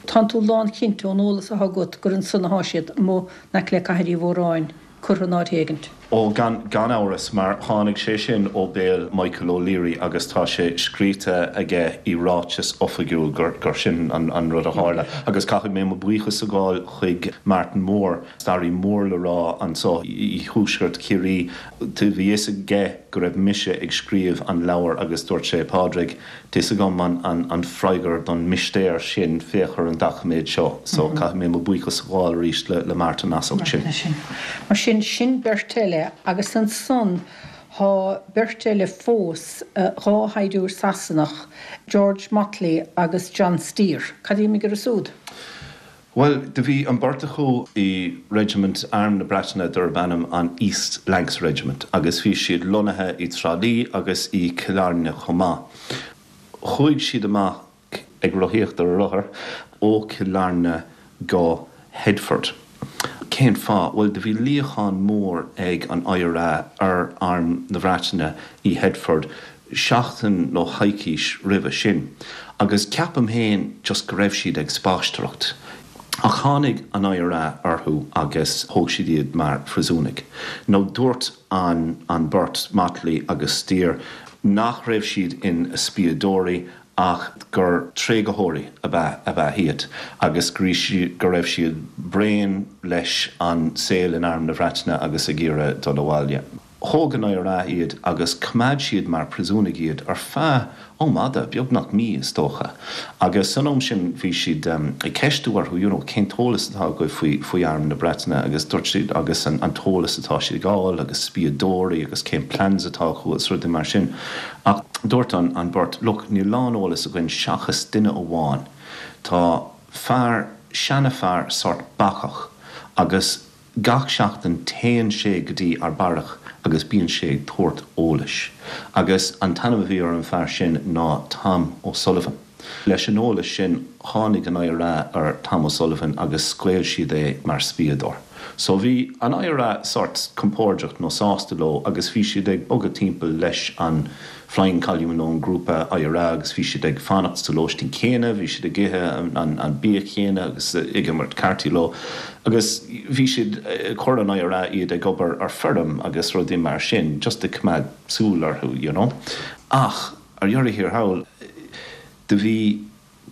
Tánn tú lánchinnte ón eolas athá agat gur ansan athá siad, amuigh in aice le Cathair Uí Mhóráin, curtha in áit éigint. Ó, gan, gan amhras, mar tháinig sé sin ó béal Michael O'Leary agus tá sé scríte aige i ráiteas oifigiúil gur, gur sin an, an rud a tharla. Agus caithfidh mé mo bhuíochas a ghabháil chuig Martin Moore, staraí mór le rá anso i thuaisceart Chiarraí. Bhí fhios aige go raibh mise ag scríobh an leabhair agus dúirt sé, Pádraig, Tá's agam an freagra don mistéir sin, féach ar an doiciméad seo. So, caithfidh mé mo buíochas a ghabháil arís le Martin as ucht sin. Mar sin, sin beirt eile agus ansan thá beirt eile fós, 2 shaighdiúir Sasanach, George Motley agus John Steer. Cad a d'imigh orthu súd? Bhuel, do bhí an beirt acu i reisimint Arm na Breataine darb ainm an East Lancs Regiment agus bhí siad lonnaithe i dTrá Lí agus i Cill Airne chomh maith. Chuaigh siad amach ag rothaíocht ar a rothair ó Chill Airne go Headford. Cén fáth? Bhuel, do bhí luíochán mór ag an IRA ar Arm na Breataine i Headford seachtain nó coicís roimhe sin agus ceapaim féin just go raibh siad ag spaisteoireacht. Ach tháinig an IRA orthu agus thóg siad iad mar phríosúnaigh. Nó dúirt an an beirt, Motley agus Steer, nach raibh siad ina spiadóirí ach gur tréigtheoirí ab ea ab ea iad agus go go raibh siad bréan leis an saol in Arm na Breataine agus ag iarraidh dul abhaile. Thóg an IRA iad agus choimeád siad mar phríosúnaigh iad ar feadh am fhada, beagnach mí is dócha. Agus san am sin bhí siad ag ceistiú orthu, you know, cén t-eolas atá agaibh faoi, faoi Arm na Breataine agus dúirt siad agus an t-eolas atá siad ag fháil agus spiadóirí agus cén plans atá acu agus rudaí mar sin. Ach dúirt an, an bheirt, look, níl a lán eolas againn seachas duine amháin. Tá fear, seana-fhear sort bacach agus Gach seachtain téann sé go dtí ár beairic agus bíonn sé ag tabhairt eolais. Agus an t-ainm a bhí ar an fear sin ná Tom O'Sullivan. Leis an eolas sin tháinig an IRA ar Tom O'Sullivan agus scaoil siad é mar spiadóir. So bhí an IRA sort compordach nó sásta leo agus bhí siad ag bogadh timpeall leis an Flying Column nó an grúpa IRA agus bhí siad ag fanacht sa lóistín céanna, bhí siad ag ithe an bia chéanna agus ag imirt cártaí leo agus bhí siad, chuir an IRA iad ag obair ar feirm agus rudaí mar sin just ag coimeád súil orthu you know. Ach ar dheireadh thiar thall do bhí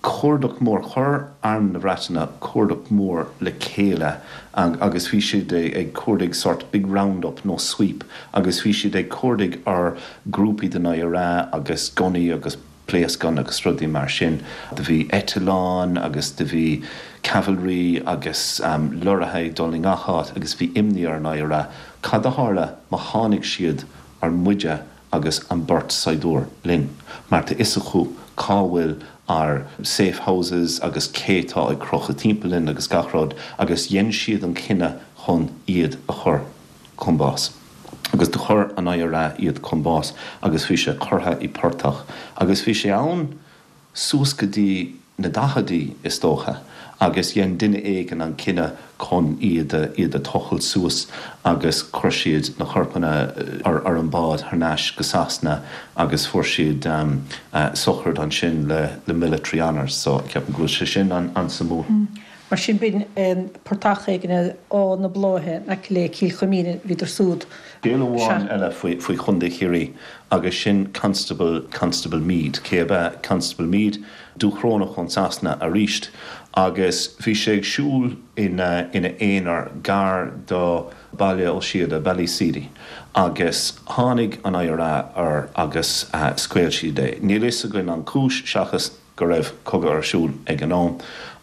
cuardach mór. Chuir Arm na Breataine cuardach mór le chéile agus bhí siad ag cuardaigh sort big round up nó sweep agus bhí siad ag cuardaigh ar grúpaí den IRA agus gunnaí agus pléascáin agus rudaí mar sin. Do bhí eitleáin agus do bhí cavalry agus lorraithe ag dul i ngach áit agus bhí imní ar an IRA cad a tharla má tháinig siad ar muide agus an beirt saighdiúir linn, mar tá fhios acu cá bhfuil ár safe houses agus cé tá ag crochadh timpeall linn agus gach rud, agus dhein siad an cinneadh chun iad a chur chun bás. Agus do chuir an IRA iad chun bás agus bhí sé curtha i portach agus bhí sé ann suas go dtí na daicheadaí, is dócha, agus dhein duine éigin an cinneadh chun iad a, iad a tochailt suas agus chuir siad na corpanna ar, ar an bád thar n-ais go Sasana agus fuair siad sochraid ansin le, le military honours. So, ceapaim go bhfuil sé sin an, an-suimiúil. Mar sin, b'in portach éigin ar Áth na Bláithe in aice le Cill Chuimín, bhíodar súd. Scéal amháin eile faoi, faoi Chontae Chiarraí agus sin Constable, Constable Meade. Cé ab ea Constable Meade? Dúchrónach ón Sasana aríst agus bhí sé ag siúl ina, ina aonar gar do Baile Ó Síoda, Ballyseedy, agus tháinig an IRA air agus scaoil siad é. Níl fhios againn an cúis seachas go raibh cogadh ar siúl ag an am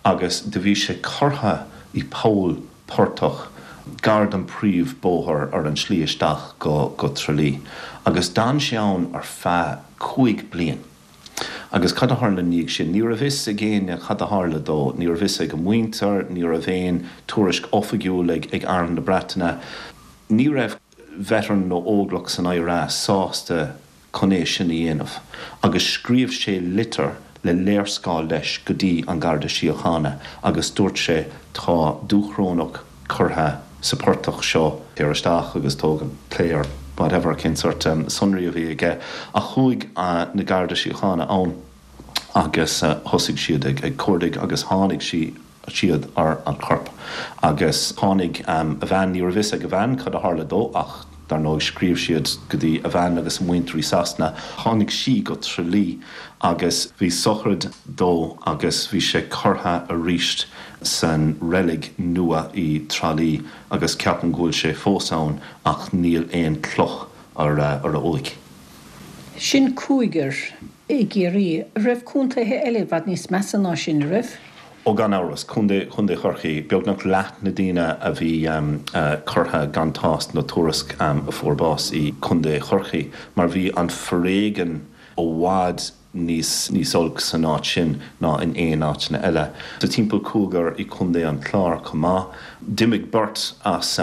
agus do bhí sé curtha i poll portach gar don príomh bóthar ar an slí isteach go go Tralee agus d'fhan sé ann ar feadh 5 bliain. Agus cad a tharla ina dhiaidh sin? Ní raibh fhios ag éinne cad a tharla dó, ní raibh fhios ag a mhuintir, ní raibh aon tuairisc oifigiúil ag ag Arm na Breataine. Ní raibh veteran nó óglach san IRA sásta chun é sin a dhéanamh agus scríobh sé litir le léarscáil leis go dtí an Garda Síochána agus dúirt sé tá Dúchrónach curtha sa portach seo, téir isteach agus tóg an clay or whatever cén sort sonraí a bhí aige ach chuaigh na Garda Síochána ann agus thosaigh siad ag cuardaigh agus tháinig sí siad ar an chorp agus tháinig a bhean, ní raibh fhios ag a bhean cad a tharla dó ach dar ndóigh scríobh siad go dtí a bhean agus a muintir i Sasana, tháinig sí go Tralee agus bhí sochraid dó agus bhí sé curtha aríst san reilig nua i Tralee agus ceapaim go bhfuil sé fós ann ach níl aon cloch ar a uaigh. Sin cúigear i gCiarraí. An raibh contaetha eile i bhfad níos measa ná sin, an raibh? Ó gan amhras. Contae, Contae Chorcaí, beagnach leath na daoine a bhí curtha gan tásc nó tuairisc a fuair bás i gContae Chorcaí mar bhí an foréigean i bhfad níos níos olc san áit sin ná in aon áiteanna eile. Tá timpeall cúigear i Contae an Chláir chomh maith. D'imigh beirt as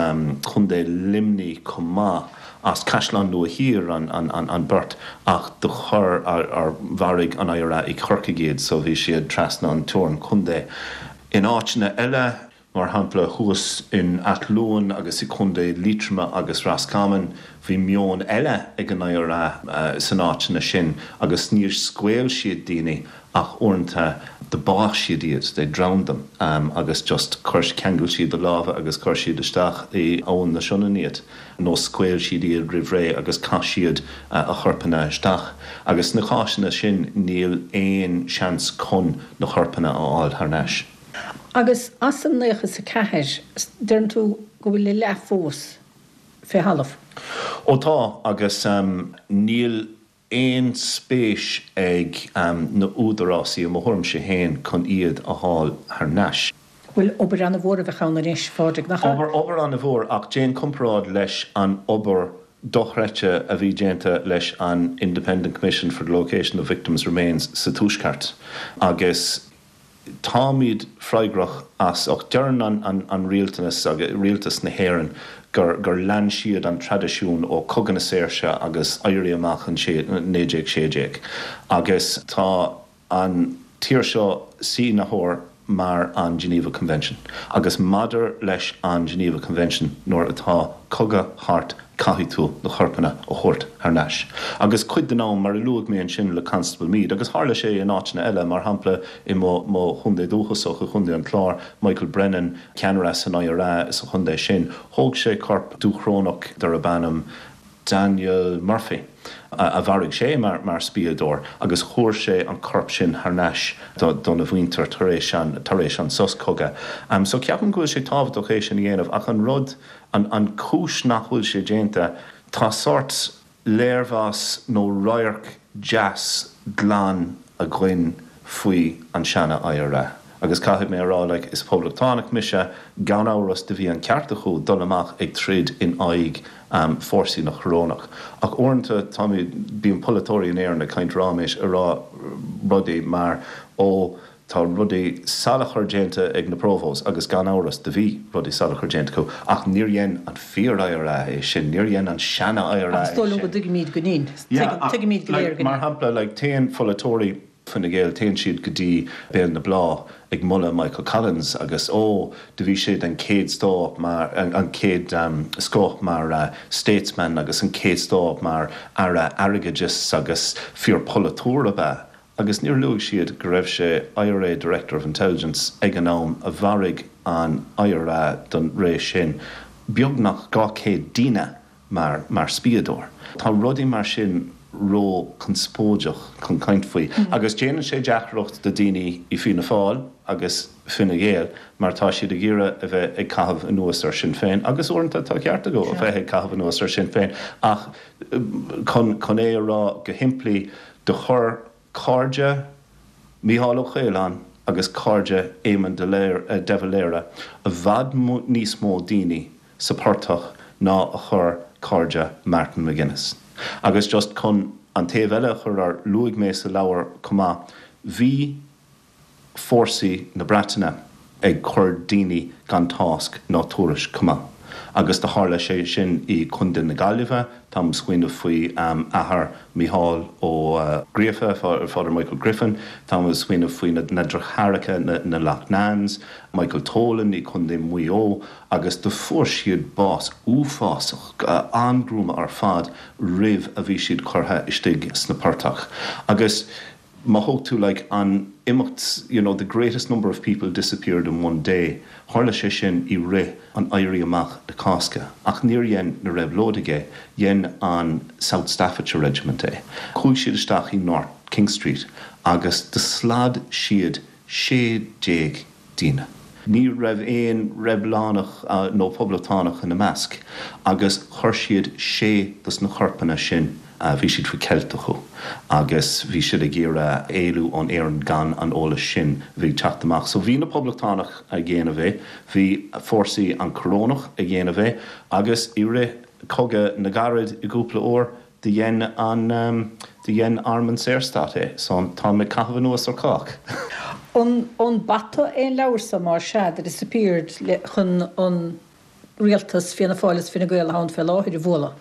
Contae Luimnigh chomh maith, as Caisleán Nua Thiar an an beirt ach do chuir ar mharaigh an IRA i Corcaigh iad so bhí siad trasna an teorainn contae. In áiteanna eile. Mar shampla, thuas in Ath Luain agus i Contae Liatroma agus Roscommon, bhí meon eile ag an IRA san áiteanna sin agus níor scaoil siad daoine ach uaireanta. Do bádh siad iad, they drowned them, agus just chuir, cheangail siad a lámha agus chuir siad isteach i Abhainn na Sionainne iad, nó scaoil siad iad roimh ré agus chaith siad a chorpanna isteach. Agus sna cásanna sin níl aon seans chun na corpanna a fháil thar n-ais. Agus as an 94, deireann tú go bhfuil a leath fós fé thalamh? Ó tá, agus níl aon spéis ag na údarásaí, i mo thuairimse féin, chun iad a fháil thar n-ais. Bhuel, obair ana-mhór a bheadh ann anois, a Phádraig, nach ea? Obair, obair ana-mhór, ach déan comparáid leis an obair dochreidte a bhí déanta leis an Independent Commission for the Location of Victims' Remains sa Tuaisceart agus Táimid freagrach as ucht deireann an rialtanas agus rialtas na hÉireann gur gur lean siad an traidisiún ó Cogadh na Saoirse agus Éirí Amach an 1916 agus tá an tír seo sínitheoir mar an Geneva Convention agus maidir leis an Geneva Convention nuair atá cogadh thart caithfidh tú na corpanna a thabhairt thar n-ais. Agus cuid den am, mar a luaigh mé ansin le Constable Meade, agus tharla sé in áiteanna eile, mar shampla i mo mo chontae dúchasach, i gContae an Chláir, Michael Brennan, ceannaire san IRA sa chontae sin, thóg sé corp Dúchrónach darb ainm Daniel Murphy, a mharaigh sé mar mar spiadóir, agus chuir sé an corp sin thar n-ais dona mhuintir tar éis an tar éis an sos cogaidh. So ceapaim go bhfuil sé tábhachtach é sin a dhéanamh ach an rud, An chúis nach bhfuil sé déanta, tá sórt léirmheas nó radharc deas glan againn faoi an seana IRA. Agus caithfidh mé a rá, like, is poblachtánach mise, gan amhras do bhí an ceart acu dul amach ag troid in aghaidh fórsaí na Corónach. Ach uaireanta táimid, bíonn polaiteoirí in Éirinn ag caint ráiméis ag rá rudaí mar, ó, Tá rudaí salachar déanta ag na Provos agus gan amhras do bhí rudaí salachar déanta acu ach níor dhein an fíor IRA é sin, níor dhein an seana IRA é sin. Ach is dóigh liom go dtuigimíd go ndin. Tuigimíd go léir go ndin. Mar shampla, like, téann pholaiteoirí Fine Gael, téann siad go dtí Béal na Bláth ag moladh Michael Collins agus ó, do bhí sé den chéad stóth mar, an chéad scoth mar statesman agus an chéad scoth mar Aire Airgeadais agus fíor polaiteoir ab ea. Agus níor luaigh siad go raibh sé IRA Director of Intelligence ag an am a mharaigh an IRA don ré sin beagnach 200 daoine mar mar spiadóir. Tá rudaí mar sin ró conspóideach chun caint faoi agus déanann sé deacracht do daoine i Fianna Fáil agus Fine Gael mar tá siad ag iarraidh a bheith ag caitheamh anuas ar Sinn Féin agus uaireanta tá ceart acu a bheith ag caitheamh anuas ar Sinn Féin ach chun chun é a rá go shimplí Do chuir cairde Mícheál Ó Caoláin agus cairde Éamon de Valera i bhfad níos mó daoine sa portach ná a chuir cairde Martin McGuinness. Agus just chun an taobh eile a chur ar, luaigh mé sa leabhar chomh maith, bhí fórsaí na Breataine ag cur daoine gan tásc ná tuairisc chomh maith. Agus do tharla sé sin i Contae na Gaillimhe, táim ag smaoineamh faoi athair Mícheál Ó Gríofa, Father Michael Griffin, táim ag smaoineamh faoi na deartháireacha, na Loughnanes, Michael Tolan i Contae Mhaigh Eo, agus do fuair siad bás uafásach, an-ghruama ar fad roimh a bhí siad curtha istigh sna portach. Agus. Má thóg tú like an imeacht you know the greatest number of people disappeared in one day, tharla sé sin i rith an Éirí Amach na Cásca ach níor dhein na réabhlóidigh é, dhein an South Staffordshire Regiment é. Chuaigh siad isteach i North King Street agus do slad siad 16 daoine. Ní raibh aon reibiliúnach nó poblachtánach ina measc agus chuir siad sé dos na corpanna sin, bhí siad faoi cheilt acu agus bhí siad ag iarraidh éalú ón Éirinn gan an eolas sin a bhí ag teacht amach. So bhí na poblachtánach ag dhéanamh é, bhí fórsaí an Corónach ag dhéanamh é agus i rith Cogadh na gCarad i gcúpla uair, Do dhein an, do dhein Arm an Saorstát é, so táim ag caitheamh anuas ar chách. An, an bata é an leabhar so, más ea, The Disappeared, le, chun an rialtas, Fianna Fáil is Fine Gael atá ann fé láthair, a bhualadh?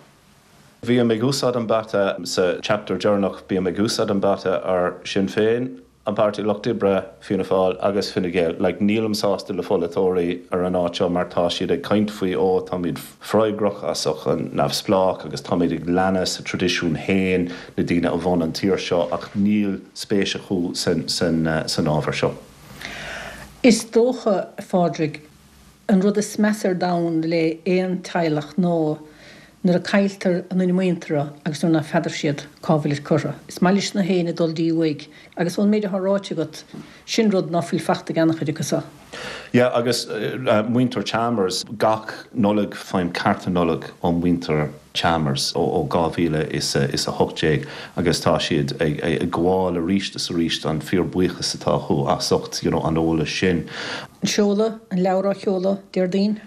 Bím ag úsáid an bata sa chapter deireanach, bím ag úsáid an bata ar Sinn Féin. An Páirtí Lucht Oibre, Fianna Fáil agus Fine Gael. Like, nílim sásta le pholaiteoirí ar an áit seo mar tá siad ag caint faoi ó táimid freagrach as an neamhspleách agus táimid ag leanadh sa traidisiún féin, na daoine a bhun an tír seo ach níl spéis acu san san san ábhar seo. Is dócha, a Phádraig, An rud is measa ar domhan le aon teaghlach ná nuair a cailltear a nduine muinteartha agus nuair ná feadar siad cá bhfuilid curtha. Is maith leis na héinne dul dtí uaigh agus ón méid atá ráite agat, sin rud ná fuil fachta ag an-chuid acu so. Yeah agus muintir Chalmers, gach Nollaig faighim cárta Nollag ó mhuintir Chalmers ó 2018 agus tá siad ag gabháil arís is arís an fíor buíochas atá acu as ucht you know an eolas sin. Seoladh an leabhar á sheoladh Déardaoin.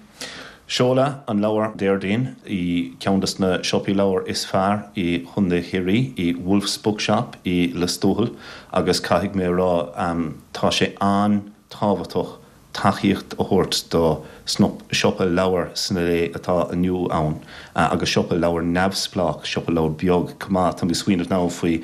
Seoladh an leabhar Déardaoin i ceann des na siopaí leabhar is fearr i Chontae Chiarraí, i Wolfe's Bookshop i Lios Tuathail agus caithfidh mé a rá tá sé an-tábhachtach tacaíocht a thabhairt do siopa leabhar sna lae atá inniu ann agus siopa leabhar neamhspleách, siopa leabhar beag chomh maith. Tá mé ag smaoineamh now faoi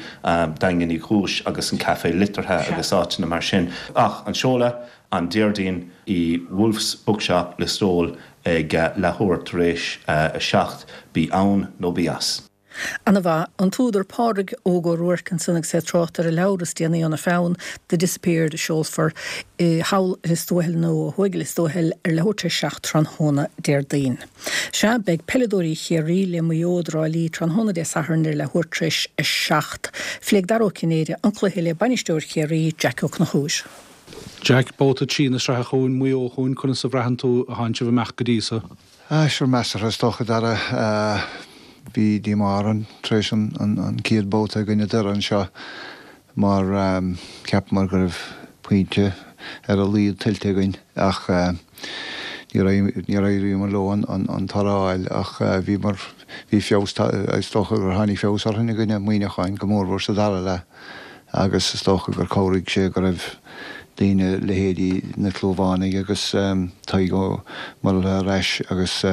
Daingean Uí Chúis agus an Café Liteartha agus áiteanna mar sin. Ach an seoladh, an Déardaoin i Wolfe's Bookshop, Lios Tuathail ag leathuair tar éis a 7, bí ann nó bí as. Ana mhaith. An t-údar Pádraig Óg Ó Ruairc ansan agus é ag trácht ar a leabhar is déanaí óna pheann, The Disappeared, a seolfar i thall i Lios Tuathail nó ó thuaidh i Lios Tuathail ar leathuair tar éis 7 tráthnóna Déardaoin. Sea, beidh peileadóirí Chiarraí le Maigh Eo i dTrá Lí tráthnóna Dé Sathairn ar leathuair tar éis 7. Phléigh Dara Ó Cinnéide an cluiche le bainisteoir Chiarraí, Jack Ó Conchúir. Jack, Babhta 3 na sraithe chugainn, Maigh Eo chugainn, conas a bhraitheann tú a thánn sibh amach go dtí so? Ah, sure, measartha is dócha, Dara. Bhí díomá orainn tar éis an chéad babhta i gcoinne Doire anseo mar cheapamar go raibh pointe ar a laghad tuillte againn ach níor éiríomar leo an toradh a fháil ach bhíomar, bhí feabhas, is dócha gur tháinig feabhas orainn i gcoinne Muineacháin, go mórmhór sa dara leath. agus is dócha gur chabhraigh sé go raibh daoine, leithéidí na Clúmhánaigh agus Tadhg Ó Muirthile ar ais agus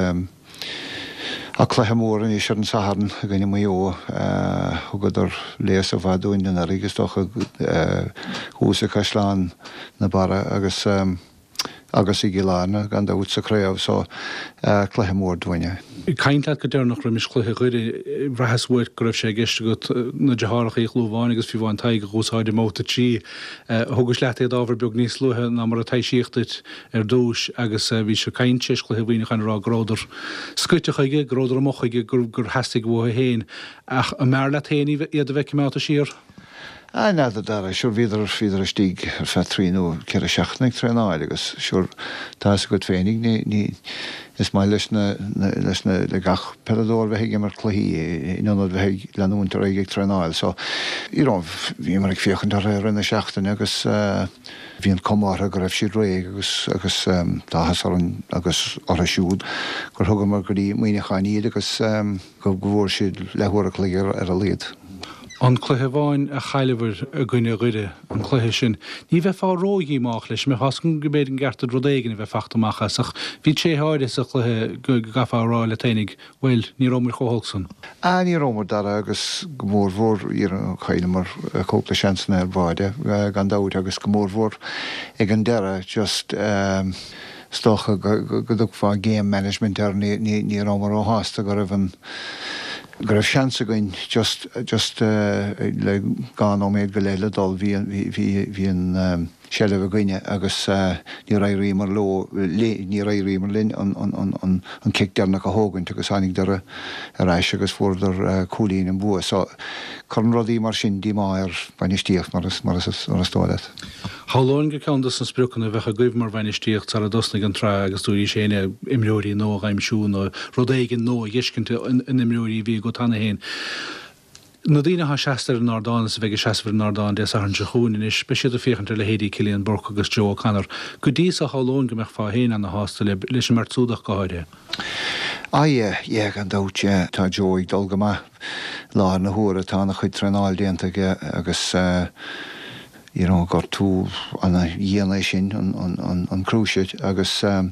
ach cluiche mór anois ar an Satharn i gcoinne Maigh Eo. Thugadar léasadh mhaith dúinn anuraidh is dócha thuas i Caisleán na Barra agus. agus i gCill Airne, gan dabht, sa chraobh so, cluiche mór dúinn é. Ag caint leat go deireanach roimis chluiche Dhoire, bhraitheas uait go raibh sé i gceist agat na deartháireacha Uí Chlúmháin agus fiú amháin Tadhg a dh'úsáid i mbabhta 3. Thugais leat iad ábhar beag níos luaithe ná mar a taibhsíodh duit ar dtús agus bhís ag caint tar éis chluiche Mhuineacháin ag rá go rabhadar scoite chuige, go rabhadar amuigh chuige, gur theastaigh uathu féin. Ach an mb'fhearr leat féin iad a bheith coimeádta siar? Ah, n'fheadar, Dara, sure bhíodar, bhíodar istigh ar feadh trí nó ceithre seachtaine ag traenáil agus sure tá fhios agat féinig, ní, ní, is maith leis na, na, leis na, le gach peileadóir bheith ag imirt cluichí in ionad bheith ag leanúint ar aghaidh ag traenáil so, you know, bhíomar ag féachaint orthu i rith na seachtaine agus eh, bhí an cuma orthu go raibh siad réidh agus, agus eh, tá áthas orainn agus orthu siúd gur thugamar go dtí Muineachán iad agus eh, go bhfuair siad leathuair a chloig ar a laghad. An cluiche amháin a chailleabhair i gcoinne Dhoire, an cluiche sin, ní bheifeá ró-dhíomách leis, mbeifeá go mb'fhéidir an gceart duit rud éigin a bheith fachta amach as, ach bhí tréithe áirithe sa chluiche go gcaithfeá a rá leat fhéinig, bhuel, ní rabhamar chomh holc san. Ah, ní rabhamar, Dara, agus go mórmhór, chailleamar cúpla seansanna ar bháide, gan dabht, agus go mórmhór ag an deireadh, just, Is dócha go dtugfá game management air, ní rabhamar róshásta go raibh an, go raibh seans againn just, just le dhá nóiméad go leith le dul, bhí, bhí, bhí an seilbh againne agus níor éiríomar leo, níor éiríomar linn an, an, an, an cic deireanach a thógaint agus tháinig Doire ar ais agus fuaireadar cúilín an bua. So cuireann rudaí mar sin díomá ar bhainistíocht mar is, mar is, mar is dóigh leat. Shamhlóinn gur ceann dos na spriocanna a bheadh agaibh mar bhainistíocht sara dtosnaigh an tsraith agus dúraís féin é, imreoirí nua a dh'aimsiú nó rud éigin nua a dh'fheiscint in imreoirí a bhí agat cheana féin. Na daoine atá seasta ar an ardán is a bheidh ag seasamh ar an ardán Dé Sathairn seo chugainn anois, beidh siad ag féachaint ar leithéidí Cillian Burke agus Joe O'Connor. Go dtí so shamhlóinn go mbeifeá féin ana-shásta le, leis an mbeirt súd ach go háirithe. Ah yeah, yeah gan dabht, yeah. Tá Joe ag dul go maith láthair na huaire, tá ana-chuid traenáil déanta aige agus eh, you know, gortú ana-dhian é sin, an, an, an, an cruciate agus eh,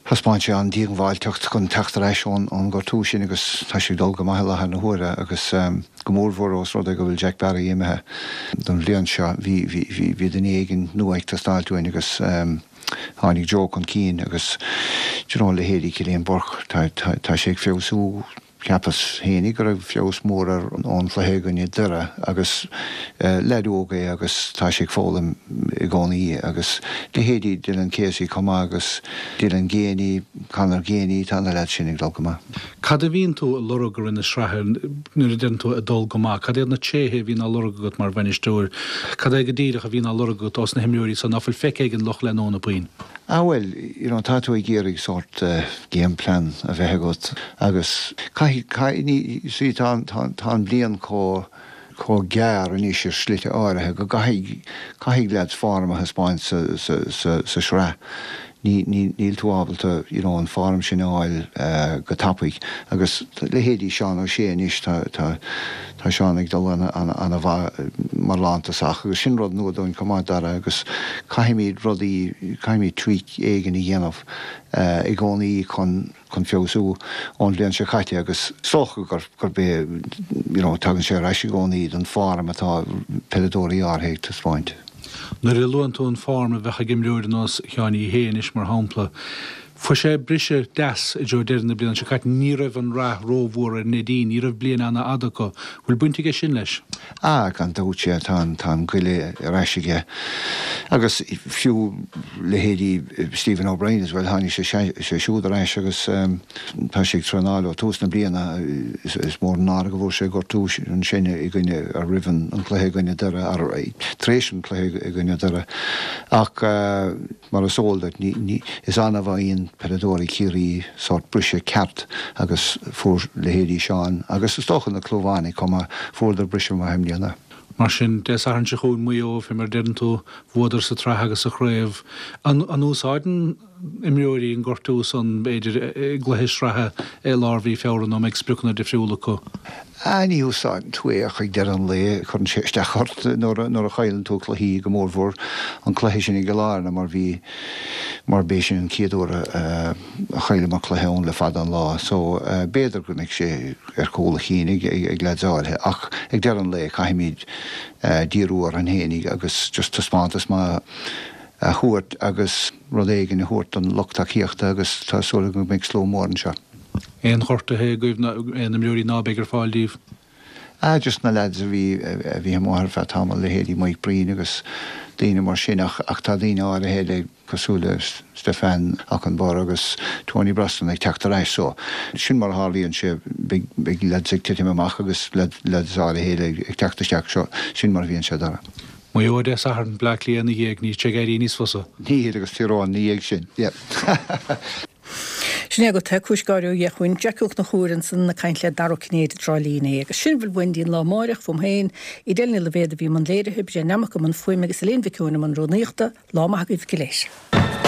Thaispeáin sé an-díongbháilteacht chun teacht ar ais ón ngortú sin agus tá sé ag dul go maith i láthair na huaire agus go mórmhór ós rud é go bhfuil Jack Barry imithe don bhliain seo. Bhí, bhí, bhí duine éigin nua ag teastáilt uainn agus tháinig Joe chun cinn agus do you know leithéidí Cillian Burke, tá, tá, tá sé ag feabhsú. Cheapas fhéinig go raibh feabhas mór air ón chluiche i gcoinne Doire agus leaid óg é agus tá sé ag foghlaim i gcónaí agus leithéidí Dylan Casey chomh maith agus Dylan Geaney, Conor Geaney, tá na leaids sin ag dul go maith. Cad a bhíonn tú a lorg i rith na sraithe nuair a deireann tú ag dul go maith? Cad iad na tréithe a bhíonn á lorg agat mar bhainisteoir? Cad é go díreach a bhíonn á lorg agat ós na himreoirí san ná fuil feicthe ag an lucht leanúna puinn? Ah bhuel, you know, tá tú ag iarraidh sórt game plan a bheith agat agus caithfidh, caithfidh, ní, you see, tá, tá, tá an bhliain chomh, chomh gearr anois ar shlite áirithe go gcaithfidh, caithfidh leaids form a thaispeáint sa, sa, sa, sa sraith. Ní, ní, níl tú ábalta, you know, an form sin a fháil go tapaidh agus leithéidí Seán O'Shea anois, tá, tá, Tá Seán ag dul ana-mhaith mar lántosach agus sin rud nua dúinn chomh maith, Dara, agus caithfimid rudaí, caithfimid tweak éigin a dhéanamh i gcónaí chun, chun feabhsú ón bhliain seo caite agus is dócha gur, gurb é, you know, tagann sé ar ais i gcónaí don form atá peileadóirí áirithe ag taispeáint. Nuair a luann tú an form a bheadh ag imreoir ar nós Sheáin Uí Shé anois, mar shampla, fuair sé briseadh deas i dtreo deireadh na bliana seo caite. Ní raibh an rath rómhór ar Neidín, ní raibh bliain ana-fhada acu. Bhfuil baint aige sin leis? Ah, gan dabht, sea, tá an, tá an goile ar ais aige. Agus fiú leithéidí Stephen O'Brien as well, tháinig sé, sé siúd ar ais agus tá sé ag traenáil ó tús na bliana. Is mór an náire go bhfuair sé gortú ansin i gcoinne, roimh an chluiche i gcoinne Doire, tar éis an chluiche i gcoinne Doire. Ach mar is eol duit, ní, is annamh a fhaigheann peileadóirí Chiarraí sórt briseadh ceart agus fuair leithéidí Seán agus is dócha na Clúmhánaigh chomh maith, fuaireadar briseadh maith i mbliana. Mar sin, Dé Sathairn seo chugainn, Maigh Eo, fé mar a deireann tú, bhuadar sa tsraith agus sa chraobh. An úsáideann imreoirí an gortú san, b'fhéidir, i gcluiche sraithe i lár mhí Feabhra nó an mbeidh spriocanna difriúla acu? Ah, ní úsáideann tú é ach ag deireadh an lae cuireann sé isteach ort nuair a chailleann tú cluichí, go mórmhór an cluiche sin i gCill Airne mar bhí, mar b'é sin an chéad uair a chailleamar cluiche ann le fada an lá. So, b'fhéidir go mbeidh sé ar chúl a chinn ag leaids áirithe ach ag deireadh an lae caithfimid díriú orainn fhéinig agus just taispeántas maith a thabhairt agus rud éigin a thabhairt don lucht tacaíochta agus tá súil agam go mbeidh slua mór anseo. Aon ghortuithe agaibh nó aon imreoirí ná beidh ar fáil díobh? Ah just na lads a bhí a bhí amuigh ar feadh tamaill, leithéidí Mike Breen agus daoine mar sin ach ach tá daoine áirithe eile cosúil le Stefan Okunbor agus Tony Brosnan ag teacht ar ais so sin mar a tharlaíonn sé beidh beidh lads ag titim amach agus lads áirithe eile ag teacht isteach so sin mar a bhíonn sé Dara. Maigh Eo Dé Sathairn, Bleá Cliath ina dhiaidh, níl sé ag éirí níos fusa. Níl, agus Tír Eoghain ina dhiaidh sin. Yeah. Sin é agat é, cúis gáire ó Dhia chugainn. Jackie Ó Conchúir ansan ag caint le Dara Ó Cinnéide i dTrá Lí inné. Agus sin a bhfuil uainn dtí'n lá amáireach, fúm féin, Edel Ní Loibhéad a bhí i mbun léirithe, Brian Nammock i mbun fuaime agus Elaine Mhic Eoin i mbun rúnaíochta. Lá maith agaibh go léir.